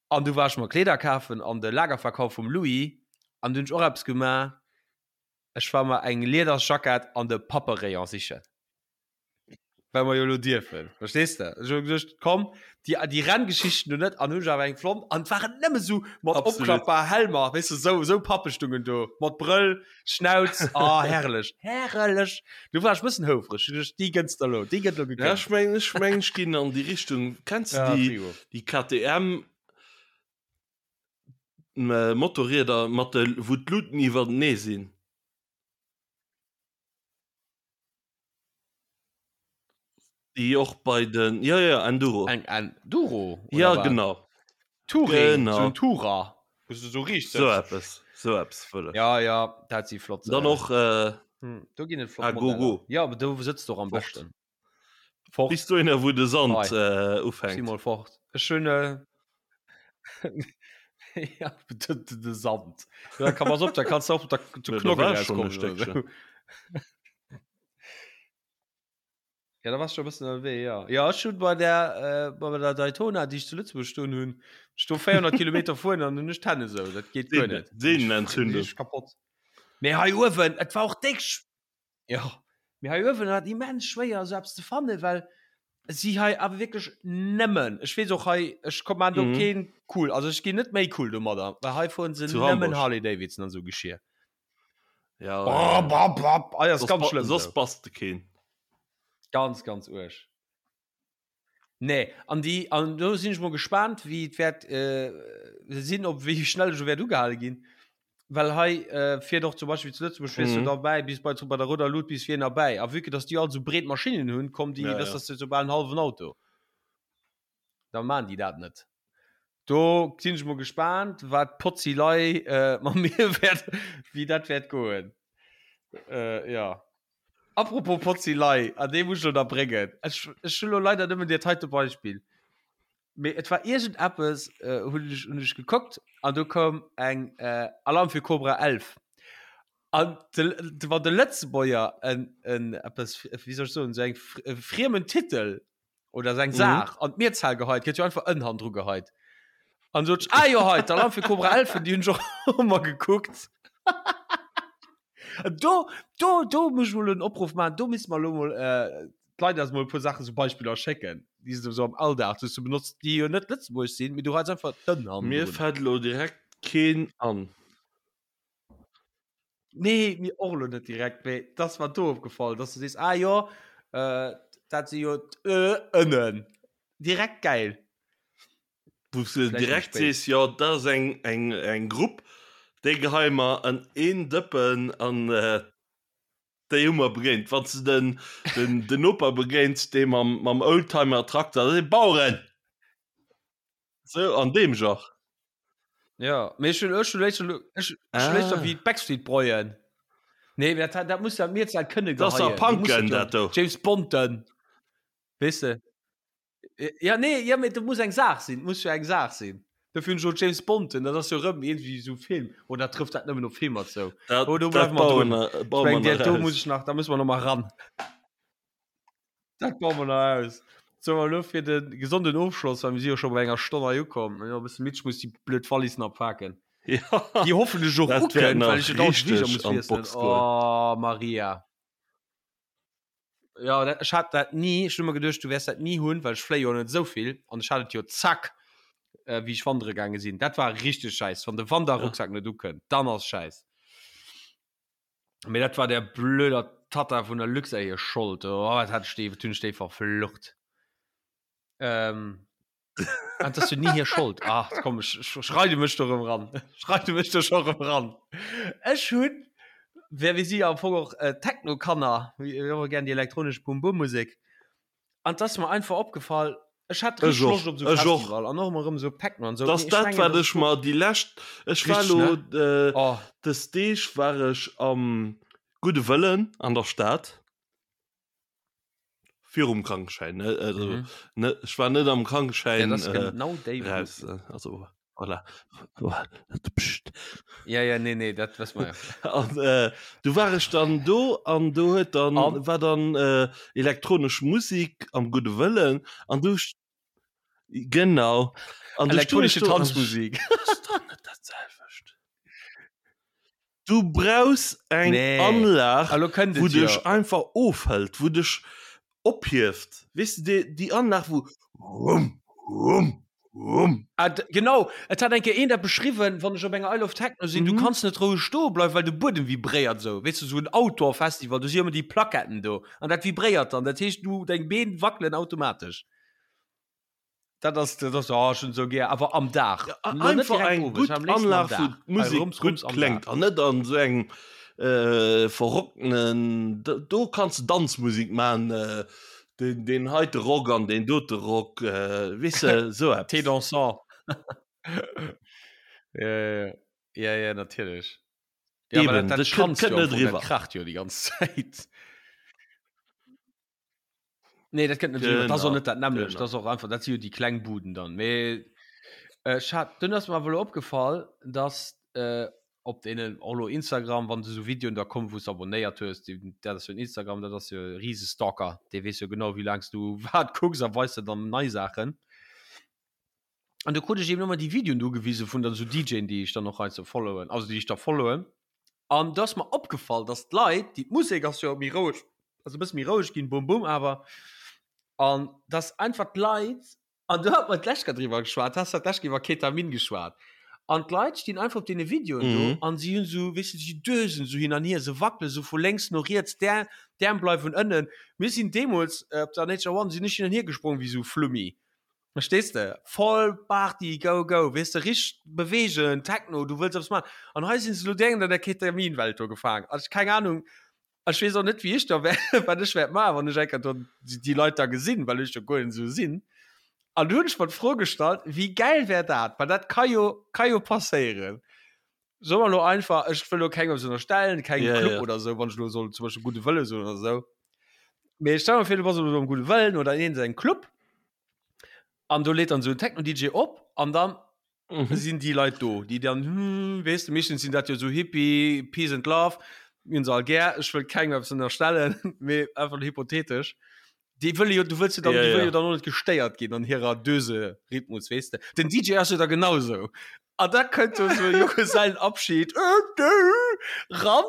An du war ech mer Kleeder kafen an de Lagerverkauf vum Louis an du hunn ech och eppes gemaach, ech war mer eng Liedersjackett an de Papperayon sichen. Well mer jo elo dierfen, verstees de? Ech hu geduecht, komm, déi, déi Renngeschichten do net, an hunn ech awer eng fonnt an et waren nëmme sou mat Absolut. opklappbar Helmer, weess de, sou, sou Pappestungen do, mat Brëll, Schnauz, ah, herrlech, herrlech. Du war ech bëssen houfreg, ech hu geduecht, déi gënns der elo, déi gëtt elo Ja, gegönnt. ech mengen, ech mengen, ech ginn an déi Richtung. Kenns de Ja, déi, Frigo. déi KTM Motorrieder mat de, wou d'Luten iwwertenee sinn? Déi och bei den, ja, ja, Enduro. Eng Enduro? Oder Ja, wat? genau. Touring, Genau. so en Tourer, wou s du so riicht So sëtzt. eppes, so eppes wëll ech. Ja, ja, dat si flott. Dann äh, och äh, hm, do ginn et flott Ah, go, Modeller. go. Ja, aber do sëtzt du och am Fort. beschten. Fort. bis dohinner, wou de Sand Hei. äh, Si ufänkt. mol fort. Ech hunn äh, ja, de, de, de Sand. Ja, kann pass op, da kannst du och der, zu Ja, da Knoggen war ech schon e rauskommen oder Stéckchen. so. Ja, da warst du schon e bëssen ënnerwee, ja. Ja, ech hunn bei der, äh, bei der Daytona, déi ech zu Lëtzebuerg stoen hunn, ech do 400 Kilometer fueren an hunn ech d'Hänn esou. Dat geet guer net. Sehnenentzündung. Ech kapott. Mee hei uewen, et war och déck sch ja, mee hei uewen war et immens schwéier esou eppes ze fannen, well si hei awer wierklech nëmmen, ech weess och hei, ech komm maan do Mhm. keen cool, also ech ginn net méi cool domadder, well hei fueren se Zu nëmmen Hamburg. Harley Davidson an esou Geschir. Ja, Bam, ja. bam, bam. Ah, ja, ist Soss ganz ba- schlimm. Soss So. bass de keen. Ganz, ganz uerg. Nee, an die, an do sinn ech mol gespannt, wéi et wäert äh, sinn, ob wéi schnell ech wäert ugehale ginn. Well hei äh, fiert och zum Beispill zu Lëtzebuerg fiers du Mhm. derbäi bis bei bei der rouder Lut bis vir erbäi. A vue que dass déi all sou breet Maschinnen hunn, kommen déi, Ja, dass ja. das sou bal en hallwen Auto. Da maan déi dat net. Do sinn ech mol gespaant, wat d'Potzilei äh, mat mir wäert, wéi dat wäert goen. Äh, ja. Apropos Potzilei, an dee muss ech lo nach bréngen. Ech, ech hunn lo leider nëmmen dat heite Beispill. Mee et war iergend eppes, äh, hunn ech, hunn ech gekuckt an do koum eng äh, Alarm für Cobra 11. An de, de, wann de Lëtzebuerger en, en eppes, wéi soll ech soen, sou eng e friemen Titel oder seng Saach an d'Mierzahl geheit, gëtt jo einfach en hannendru geheit. An sot ech, ah jo hei, d'Alarm für Cobra 11, déi hunn ech och ëmmer gekuckt. Do, do, do muss ech mol en Opruff maachen, do misste mer elo mol äh, d'Leit eis mol e puer Saachen, sou Beispiller schécken, déi se sou am Alldag sou benotzt, déi jo net lëtzebuergesch sinn, mee du heits einfach d'en Mir hannendrun. fält elo direkt keen an. Nee, mir och elo net direkt, mee et ass mer do opgefall, dass du sees, ah jo, äh, dat si jo d'Ö-Ënnen. Direkt geil. Wou s de Vläicht méi direkt spéit. sees, jo, dat ass eng, eng, eng Grupp, déi geheie mer an een Dëppen an déi hu mer begéint. Wann s de den, den, den Noper begéins, dee mam, mam Oldtimer-Trakter, dat si Baueren! Sou an deem Genre. Ja, mee ech hunn, ech hunn léischter, ech, ech hunn léischter Ah. wéi d'Backstreet Boyen. Nee, dat, dat muss ja mir halt kënne Dat ass geheien. a Du muss Punken, jo dat do. James Bonden. Weess de? Ja, nee, ja, mee dat muss eng Saach sinn, muss jo eng Saach sinn. Dofir hunn ech och James Bonden, dat ass jo rëm iergendwéi esou Film. Oder trëfft dat nëmmen op Filmer zou? Dat, Oh, do dat bleiwe mer baue drun. mer, Ech baue mer mengen, nach dat do muss aus. ech nach, da musse mer nach mal ran. Dat baue mer nach aus. So, an elo fir de gesonden Ofschloss, well mir si jo scho bei enger Stonn hei ukomm. Jo, e bësse midd, ech muss déi blöd Wallis nach paken. Ja, Déi hoffentlech och dat wäert ukënnt, well nach ech jo dauernd d'Fliger richteg muss an wiesselen. d'Box goen. Oh, Maria. Ja, dat, ech hat dat ni, ech hunn ëmmer geduecht, du wäers dat ni hunn, well ech fléie jo net esou vill. An ech hat et jo zack, äh, wéi ech wandere gaange sinn. Dat war richteg schäiss, wann de Ja. Wanderrucksak net ukënnt, dann ass schäiss. Mee dat war der blöder Tatta vun der Luxair hir Schold. Oh, wat hat ech déi, wat hunn ech déi verflucht. Ähm, ah, dat ass jo ni hir Schold. Ach, komm, ech, ech, ech reide mech do rëm ran. Ech reide mech do scho rëm ran. Ech hunn, well mir si jo am Fong och äh, Techno-Kanner, mir mir hu gär déi elektronesch Bum-Bum-Musek. An 't ass mer einfach opgefall, ech hat Ech richteg och, Loscht op esou ech och. Festival an och emmer erëm esou Techno an esou. Dass Mee ech dat mengen, wat dass ech ech do mer déi lescht, ech war Richteg, elo ne? äh, Oh. des Deeg war ech am Gudde Wëllen an der Stad, virum Krankeschäin, ne, also Mhm. ne, ech war net am Ja, dat Krankeschäin ass äh, genau déi Bud. raus, äh, also Voilà. Psst. Ja, ja, nee, nee, dat wësse mer ja. An äh, du war ech dann do an do huet dann An? war dann äh, elektronesch Musik am gudde Wëllen an du genau an du stoung ech Elektronische do an ech Tanzmusik. ass doch net dat selwecht. Du brauchs eng Nee. Anlag, Elo kënnt wou et jo. dech einfach ofhëlt, wou dech ophieft. Weess de, déi, déi Anlag, wou rumm, rumm, rumm. Ah, genau, et hat eng Kéier een dat beschriwwen, wann ech op enger Isle of Techno sinn, du Mhm. kanns net roueg stoe bleiwen, well de Buedem vibréiert esou. Weess de, esou en Outdoor-Festival, do si ëmmer déi Plaquetten do an dat vibréiert dann. Dat heescht, du, deng Been wackelen automatesch. Dat ass, dat ass, oh, ech hunn esou gär, awer am Dag. Ja, Lo net einfach direkt eng owes, gutt am léifsten am Anlag, wou Dag. Hei d'Musek rums, gutt rums am kléngt Dag. an net an esou engem äh, verrockenen, do, do kanns de Danzmusek man, äh, den, den heite Rock an den dote Rock, äh, weess de, esou Thé eppes. dansant. Ja, ja, ja, ja, natierlech. Ja, aber Eben, dat, dat dat kënnt, schanzt kënnt jo am net Fong, dat eriwwer. kracht jo déi ganz Zäit. Nee, dat kënnt net eriwwer. Dat ass och Genau, net dat nämmlecht. genau. Dat ass och einfach, dat si jo déi kleng Buden dann. Mee äh, ech hat, dunn ass mer awer elo opgefall, dass äh, op deenen, och elo Instagram, wann esou Videoen da kommen, wou s de abonnéiert hues, déi, dat ass jo en Instagram, dat ass jo e rise Stalker, dee weess jo genau, wéi laang s du wat kucks a weist der dann nei Saachen. An du krut ech eben ëmmer déi Videoen do gewise vun dann esou DJen, déi ech dann och hei ze followen, also déi ech da followen. An do ass mer opgefall, dass d'Leit, déi, d'Musek ass jo méi roueg, also e bësse méi roueg ginn, bum bum awer, an dass einfach d'Leit, an do hat mer d'lescht Kéier driwwer geschwat, has dat d'lescht Kéier iwwer Ketamin geschwat, an d'Leit stinn einfach op deene Videoen do Mhm. an si hunn esou, weess de, si dösen esou hin an hier, se wackele sou vu lénks no riets, d'Äerm, d'Äerm bleiwen ënnen. Mir sinn deemools op der Nature One, sinn ech hin an hier gesprong wéi esou Flummi. Verstees de? Voll Party, go, go, weess de, richteg bewegen, Techno, du wëlls eppes maachen. An hei sinn se elo direkt an der Ketaminwelt do gefaangen. Also keng Ahnung, ech weess och net, wéi ech da wär, wat ech wäert maachen, wann ech eng Kéier do déi Leit da gesinn, well ech jo guer net esou sinn. An du hunn ech mer d'Fro gestallt, wéi gäil wär dat? Well dat ka jo, ka jo passéieren. Soe mer elo einfach, ech wëll elo kengem eppes ënnerstellen, kengem Ja, Club ja. oder esou, wann ech elo soll zum Beispill Gudde Wëlle soen oder esou. Mee stell mer vir, du bass elo am Gudde Wëllen oder in iergendengem Club an do leet dann esou en Techno-DJ op an dann Mhm. sinn déi Leit do, déi dann, hm, weess de, meeschtens sinn dat jo esou Hippie, Peace and Love, mir hunn se all gär, ech wëll kengem eppes ënnerstellen, mee einfach hypothetesch. Déi wëlle jo, du wëlls jo dann, Ja, déi wëlle ja. jo dann och net gestéiert ginn an hirer Döse-Rhythmus, weess de. Den DJ ass jo da genau sou. An da kënnt do sou e Junggesellenabschied ran,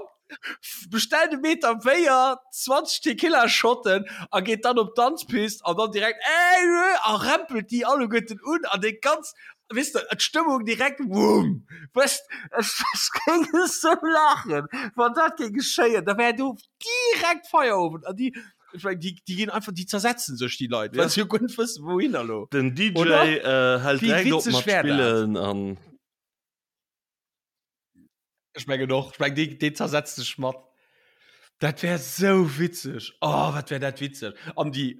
bestellt e Meter Béier, 20 Tequila-Shotten a geet dann op d'Danzpist an dann direkt ey a rempelt déi alleguerten un an déi ganz, weess de, d'Stëmmung direkt wumm. Weess, ech, ech géing esou laachen, wann dat géing geschéien. Da wär do direkt Feierowend an déi Ech mein, déi, déi ginn einfach, déi zersetzen sech déi Leit, well Ja. se jo guer net wëssen, wouhinner lo. Den DJ Oder? äh, hält Wéi direkt op witzeg mat wär dat? spillen an Ech mengen och, ech meng, dee, dee zersetzt sech mat. Dat wär sou witzeg. Oh, wat wär dat witzeg. An déi,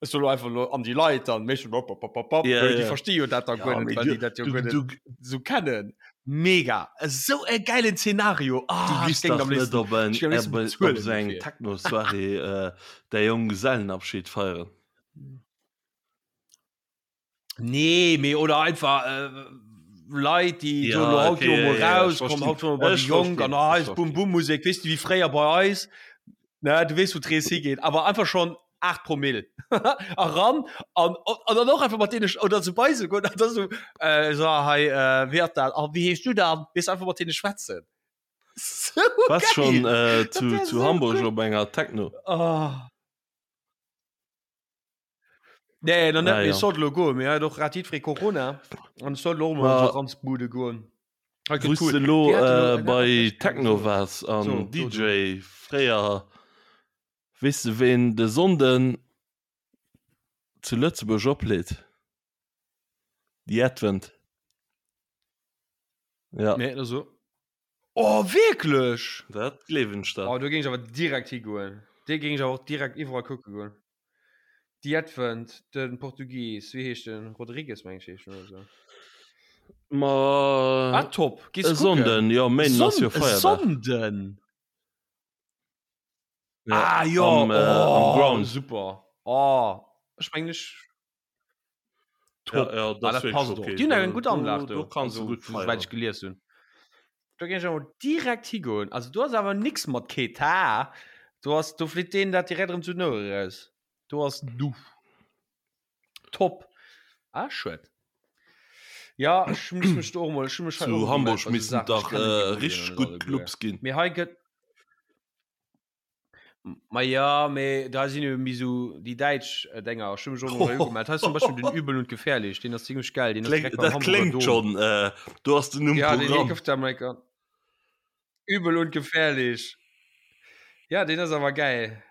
ech soe lo einfach lo, an déi Leit dann, méchen op, op, op, op, op, Ja, well déi ja. versti jo dat da Ja, guer net, mee well du, déi dat jo du, guer net du, sou kennen. Mega! Esou e geilen Szenario! du Ah, ech giss géing dach am net léifsten, op eng, ech géing am léifsten op, op bezuelen esou eng dofir. Techno-Soirée äh, däi Jonggesellenabschied feieren. Nee, mee oder einfach äh, Leit, déi Ja, soen, lo haut okay, goe ja, mol ja, ja, raus, ech komm verstinn. haut goe mer bei déi Ech Jonk verstinn, an ah, ech eis verstinn. Bum-Bum-Musek, weess de, wéi fréier bei eis, ne, du weess, wou d'Rees higeet, awer einfach schonn 8 Promille eran an, an dann och einfach mat deene oder sou bei se goen an da sou, äh, so hei, äh, wéi ass dat, ah, wéi heeschs du dann, weess, einfach mat deene schwätzen. Sou Warst geil! schon äh, Dat zu, wär zu sou Hamburg gutt! op enger Techno? Oh. Nee, nach net, Ah, mee ja. ech sollt elo goen, mee hei huet och grad jiddweree Corona an ech sollt elo och mol an Ma sou Ranzbude goen. Hei gëtt wou s cool. de elo Déi haten elo äh, eng bei aner Techno so. waars an So, so, du. DJ fréier, weess de ween de Sonnden zu Lëtzebuerg opleet? The Advent. Ja. Nee, da so. Oh, wierklech? Dat gleewen ech der. Oh, do géing ech awer direkt higoen. Dee géing ech awer och direkt iwwerall kucke goen. The Advent, de Portugies, wéi heescht den? Rodrigues, meng ech, heescht en oder sou. Ma Ah, top. Gees e kucken? Sonnden, jo, Méinden ass jo Son Feierdag. Sonnden? Ja, Ah, jo, am, äh, am oh, Ground. super. Oh, ech mengen ech Ja, Top. ja, Ah, dat dat ass wierklech passt och. okay. Déi hunn eng Do, gutt Anlag do, do do, kanns du also gutt souwäit ech feieren. gelies hunn. Do géing ech awer direkt higoen. Also do ass awer nix mat Keta. Do ass, do flitt deen dat direkt erëm zu den Ouere raus. Do ass du. Top. Ah, schued. Ja, ech muss mech do och mol, ech hu mech hei Zu och ugemellt Hamburg bei sou missten Saachen. Ech dach kennen déi äh, Budden richteg net gutt alleguer. Clubs ginn. Mee hei gëtt. Ma ja, mee da sinn jo méi sou déi däitsch Dénger. Ech hu mech och mol hei ugemellt. Hei ass zum Beispill den Übel und Gefährlich, deen ass zimmlech geil, deen ass Kléng, direkt beim dat Hamburger kléngt Dom. schonn, äh, do ass den Numm Ja, deen Programm. gouf da mol enker. Übel und Gefährlich. Ja, deen ass awer geil.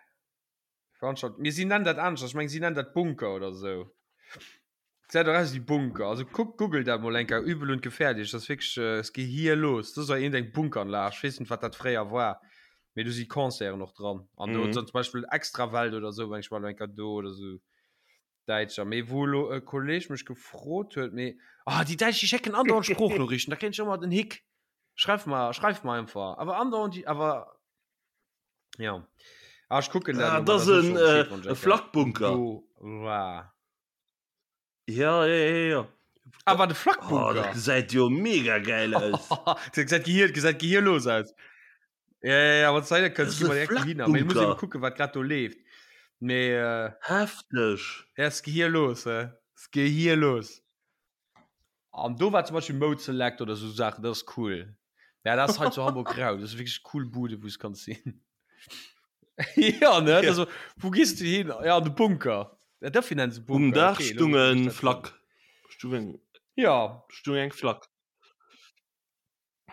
Veranstalt. Mee si nennen dat aneschters. Ech meng, si nennen dat Bunker oder sou. Gesäit och aus wéi Bunker. Also kuck, googelt dat mol eng Kéier, Übel und gefährlich. Dat ass wierklech, es geet hier los. Dat ass iergend eng Bunkeranlag. Ech weess net, wat dat fréier war. Mee do si Concerten och dran. An do Mhm. zum Beispill Extrawelt oder sou, meng ech, war elo eng Kéier do oder sou. Däitscher. Mee wou elo e Kolleg mech gefrot huet, mee, ah, déi Däitsch, déi schécken andauernd Sproochnoriichten. Da kréien ech ëmmer den Hick. Schreif mer, schreif mer einfach. Awer andauernd déi, awer. Ja. Ah, ech kucken dat Ah, elo dat mol, ass da soe en, ech och Bescheed, äh, wann ech e eng Kéier Flakbunker. do war. Ja, ja, ja, ja. Ah, war de Oh, dat Flakbunker? gesäit jo mega geil aus. Dat gesäit gehier, gesäit gehierlos aus. Ja, ja, ja, wann s du heihinner Dat kënns, ass gi e mer direkt dohinner. Mee ech muss eben Flakbunker. kucken, wat grad do leeft. Mee, äh, Hefteg. ja, ass gehierlos, hä? Ass gehierlos. An do war zum Beispiel Mode Select oder sou Saachen, dat ass cool. Ja, dat ass hei zu Hamburg rau. Dat ass wierklech cool Bude, wou s kanns sinn. Ja, ne? Ja. Also, wou gees du hin? Ja, an de Bunker. Ja, dofir nennen se Um Bunker. Daach Okay, elo stung weess ech e dat Flak. Stung eng, Ja. stung eng Flak.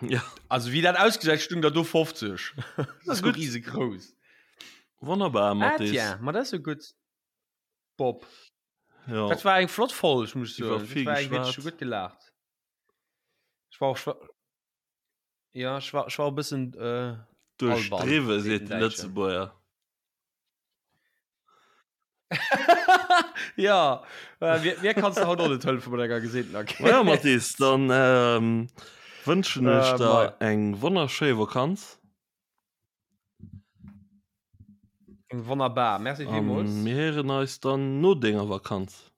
Ja. Also, wéi dat ausgesäit, stung der do 50. Dat ass Gutt. riesegrouss. Wonnerbar, Ah, Mathis. tiens, ma dat ass jo gutt. Bob. Ja. Dat war eng flott Folg, muss ich Iwwer soen. vill Dat war eng geschwat. wierklech gutt gelaacht. Ech war och schwa ja, ech war, ech war e bëssen äh, alban, Duerchdriwwe, seet seet den de Däitschen. Lëtzebuerger. Ja, äh, mir, mir kannst du haut och net hëllefe mat enger geseenten Ma ja, Mathis, dann ähm, wënschen ech Äh, der mei. eng wonnerschéi Vakanz. Wonnerbar, merci An villmools. mir héieren eis dann no denger Vakanz.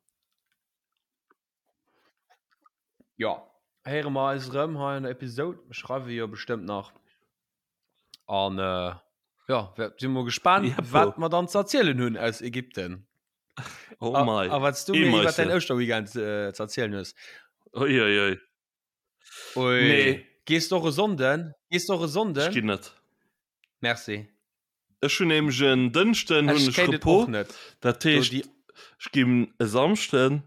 Ja, héiere mer eis erëm hei an der Episode. Mir schreiwe jo bestëmmt nach. An äh, ja, si mol gespannt, Jeppo. wat mer dann ze erzielen hunn aus Ägypten. Oh A, mei. a wat du mir iwwer däin Eemeisse. Ouschterweekend äh, ze erzielen hues. Ui, ui, ui. Ui. Nee. Gees du och e Sonnden? Gees du och e Ech Sonnden? ginn net. Merci. Ech hunn nämlech en Dënschden hunn Ech ech kéint et Repos. och net. Dat Do heescht, déi ech ginn e Samschden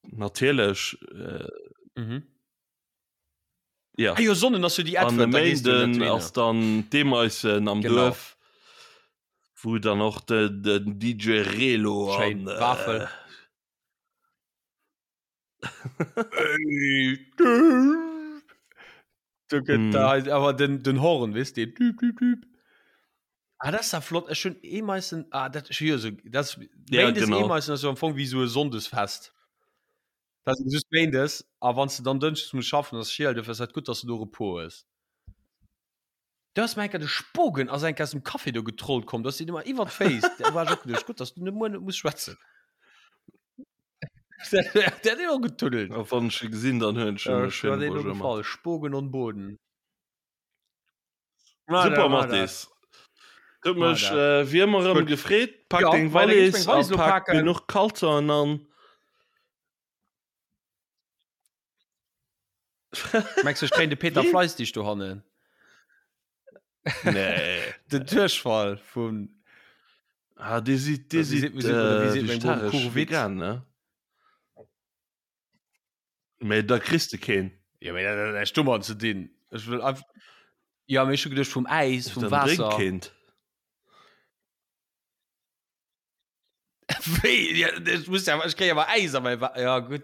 natierlech äh, Mhm. ja. Ah jo, Sonnen ass jo déi An e Advent, da gees du net Méinden dohinner. ass dann d'Eemeissen am Genau. Duerf, wou dann och de, den DJ Relo Schéin. an Wafel. äh, Du gëtt Mm. da awer den, den Horn wis de düb, düb, düb. Ah, das ist ja flott Ech hun Eemeissen ah, dat ech jo so das Ja, Méindes genau. Eemeissen ass jo am Fong wéi so e Sonndesfest. Dat ass just Méindes a wann s du dann Dënschdes muss schaffen ass schiel, dofir ass dat gutt, dass du do Repos hues. Du ass mir enker de Spogen ass enker aus dem Café do getrollt komm, dass si immer iwwer d'Féiss. Da war ech och geduecht, gutt, dass du net muer net muss schwätzen. Der huet och getuddelt. A wann ech e gesinn, dann huelen ech em e Äh, schéine war deen Bonjour mat. gefall. Spogen on Boden. Super Mathis. Huet War mech dat. äh, wéi ëmmer erëm Gutt. gefreet. Pak Ja, deng well da géif ech Wallis meng a Wallis lo pak paken. genuch Kalzonen an. Mengs du, ech kréien de Peter Wien? Fleistig dohannen? Nee. Den Duerchfall vun Ah, dee sidd, dee Wie sidd seet- wie seet- oder wie äh, seet meng Bom vegetaresch, Kurvit? vegan, ne? Mee da kriss de keen. Ja, mee dat hat näischt domat ze dinn. Ech wëll einfach. Ja, mee ech hu geduecht vum Äis, vum Dann drénk Waasser. keent. Wéi? Ja, ech muss ja, ech kréie awer Äis a mäi Wa Ja, gutt.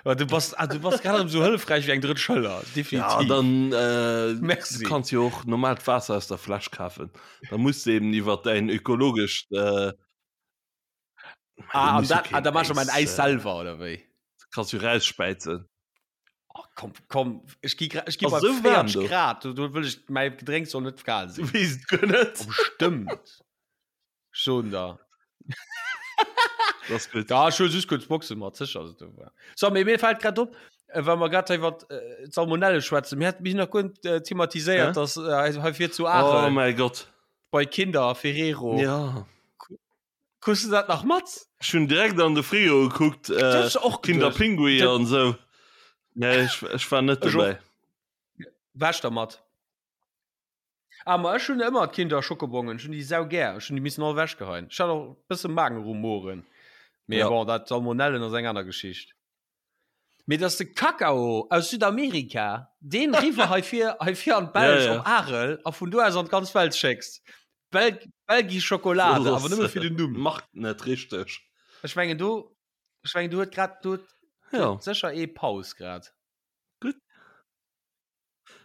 Aber du bass, ah, du bass grad erëm sou hëllefräich wéi eng drëtt Schëller. Ja, Definitiv. dann äh, Merci. du kanns jo och normaalt Waasser aus der Fläsch kafen. Da muss du eben iwwer däin ökologescht äh, Ah, an muss jo dat, ah, keen da mach ech mäin Äis, Äis äh, selwer, oder wéi? Kanns jo rausspäizen. Oh, komm, komm, ech gi gra- ech gi Ass bei sou waarm 40 do. Grad, do, do wëll ech, mäi Gedrénks soll net kal Du sinn. weess et guer net. Oh, bestimmt. Schon da. Das ist gut. Da schon just kurz Boxen mat sicher ass et do war. So, mee mir fällt grad op, äh, wa mer grad iwwer äh, d'Salmonelle schwätzen, mir hat mich nach guer äh, thematiséiert, Hä? dass äh, hei fir zu Oh Aachel mein Gott. bei Kinder Ferrero. Ja. Kuss du dat nach mat? Ech hunn direkt an de Frigo gekuckt, Das äh, ist och Kinder geduecht. Pinguin Dat- an sou. Nee, ech, ech war net Ech och. dobäi. Wäsch der mat. Ah, ma ech hunn ëmmer d'Kinder Schokobongen, ech hunn déi sau gär, ech hunn déi missen all wechgeheien. Ech hat och e bësse Magenrumoren. Mee Ja. bon, dat Salmonellen ass eng aner Geschicht. Mee dass de Kakao aus Südamerika deen riwwer hei vir, hei vir an d'Belsch Ja, ja. op Arel a vun do aus an d'ganz Welt schécks. Bel Belgi Schokolade, awer nëmme fir den Numm. Macht net richteg. Ech mengen do, ech mengen do huet grad, do huet Ja. sécher ee Paus grad. Gutt.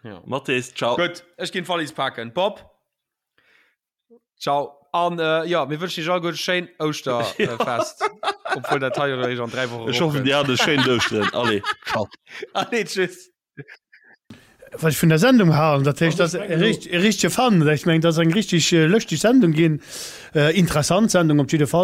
Ja. Mathis, ciao. Gutt, ech ginn d'Wallis paken. Bob, ciao. An äh, ja, mir wënschen iech alleguer e schéin Ouschterfest. Obwuel dat hei jo eréischt an 3 Wochen Ech hoffen, dir hat e schéint Ouschteren. Allez, ciao. Allez, tschüss. Wat ech vun der Sendung halen, dat heescht, Also, dat ech mengen ass e richtege Fan. Ech mengen, dat ass eng richtig lëschteg Sendung ginn, interessant Sendung op jiddefalls.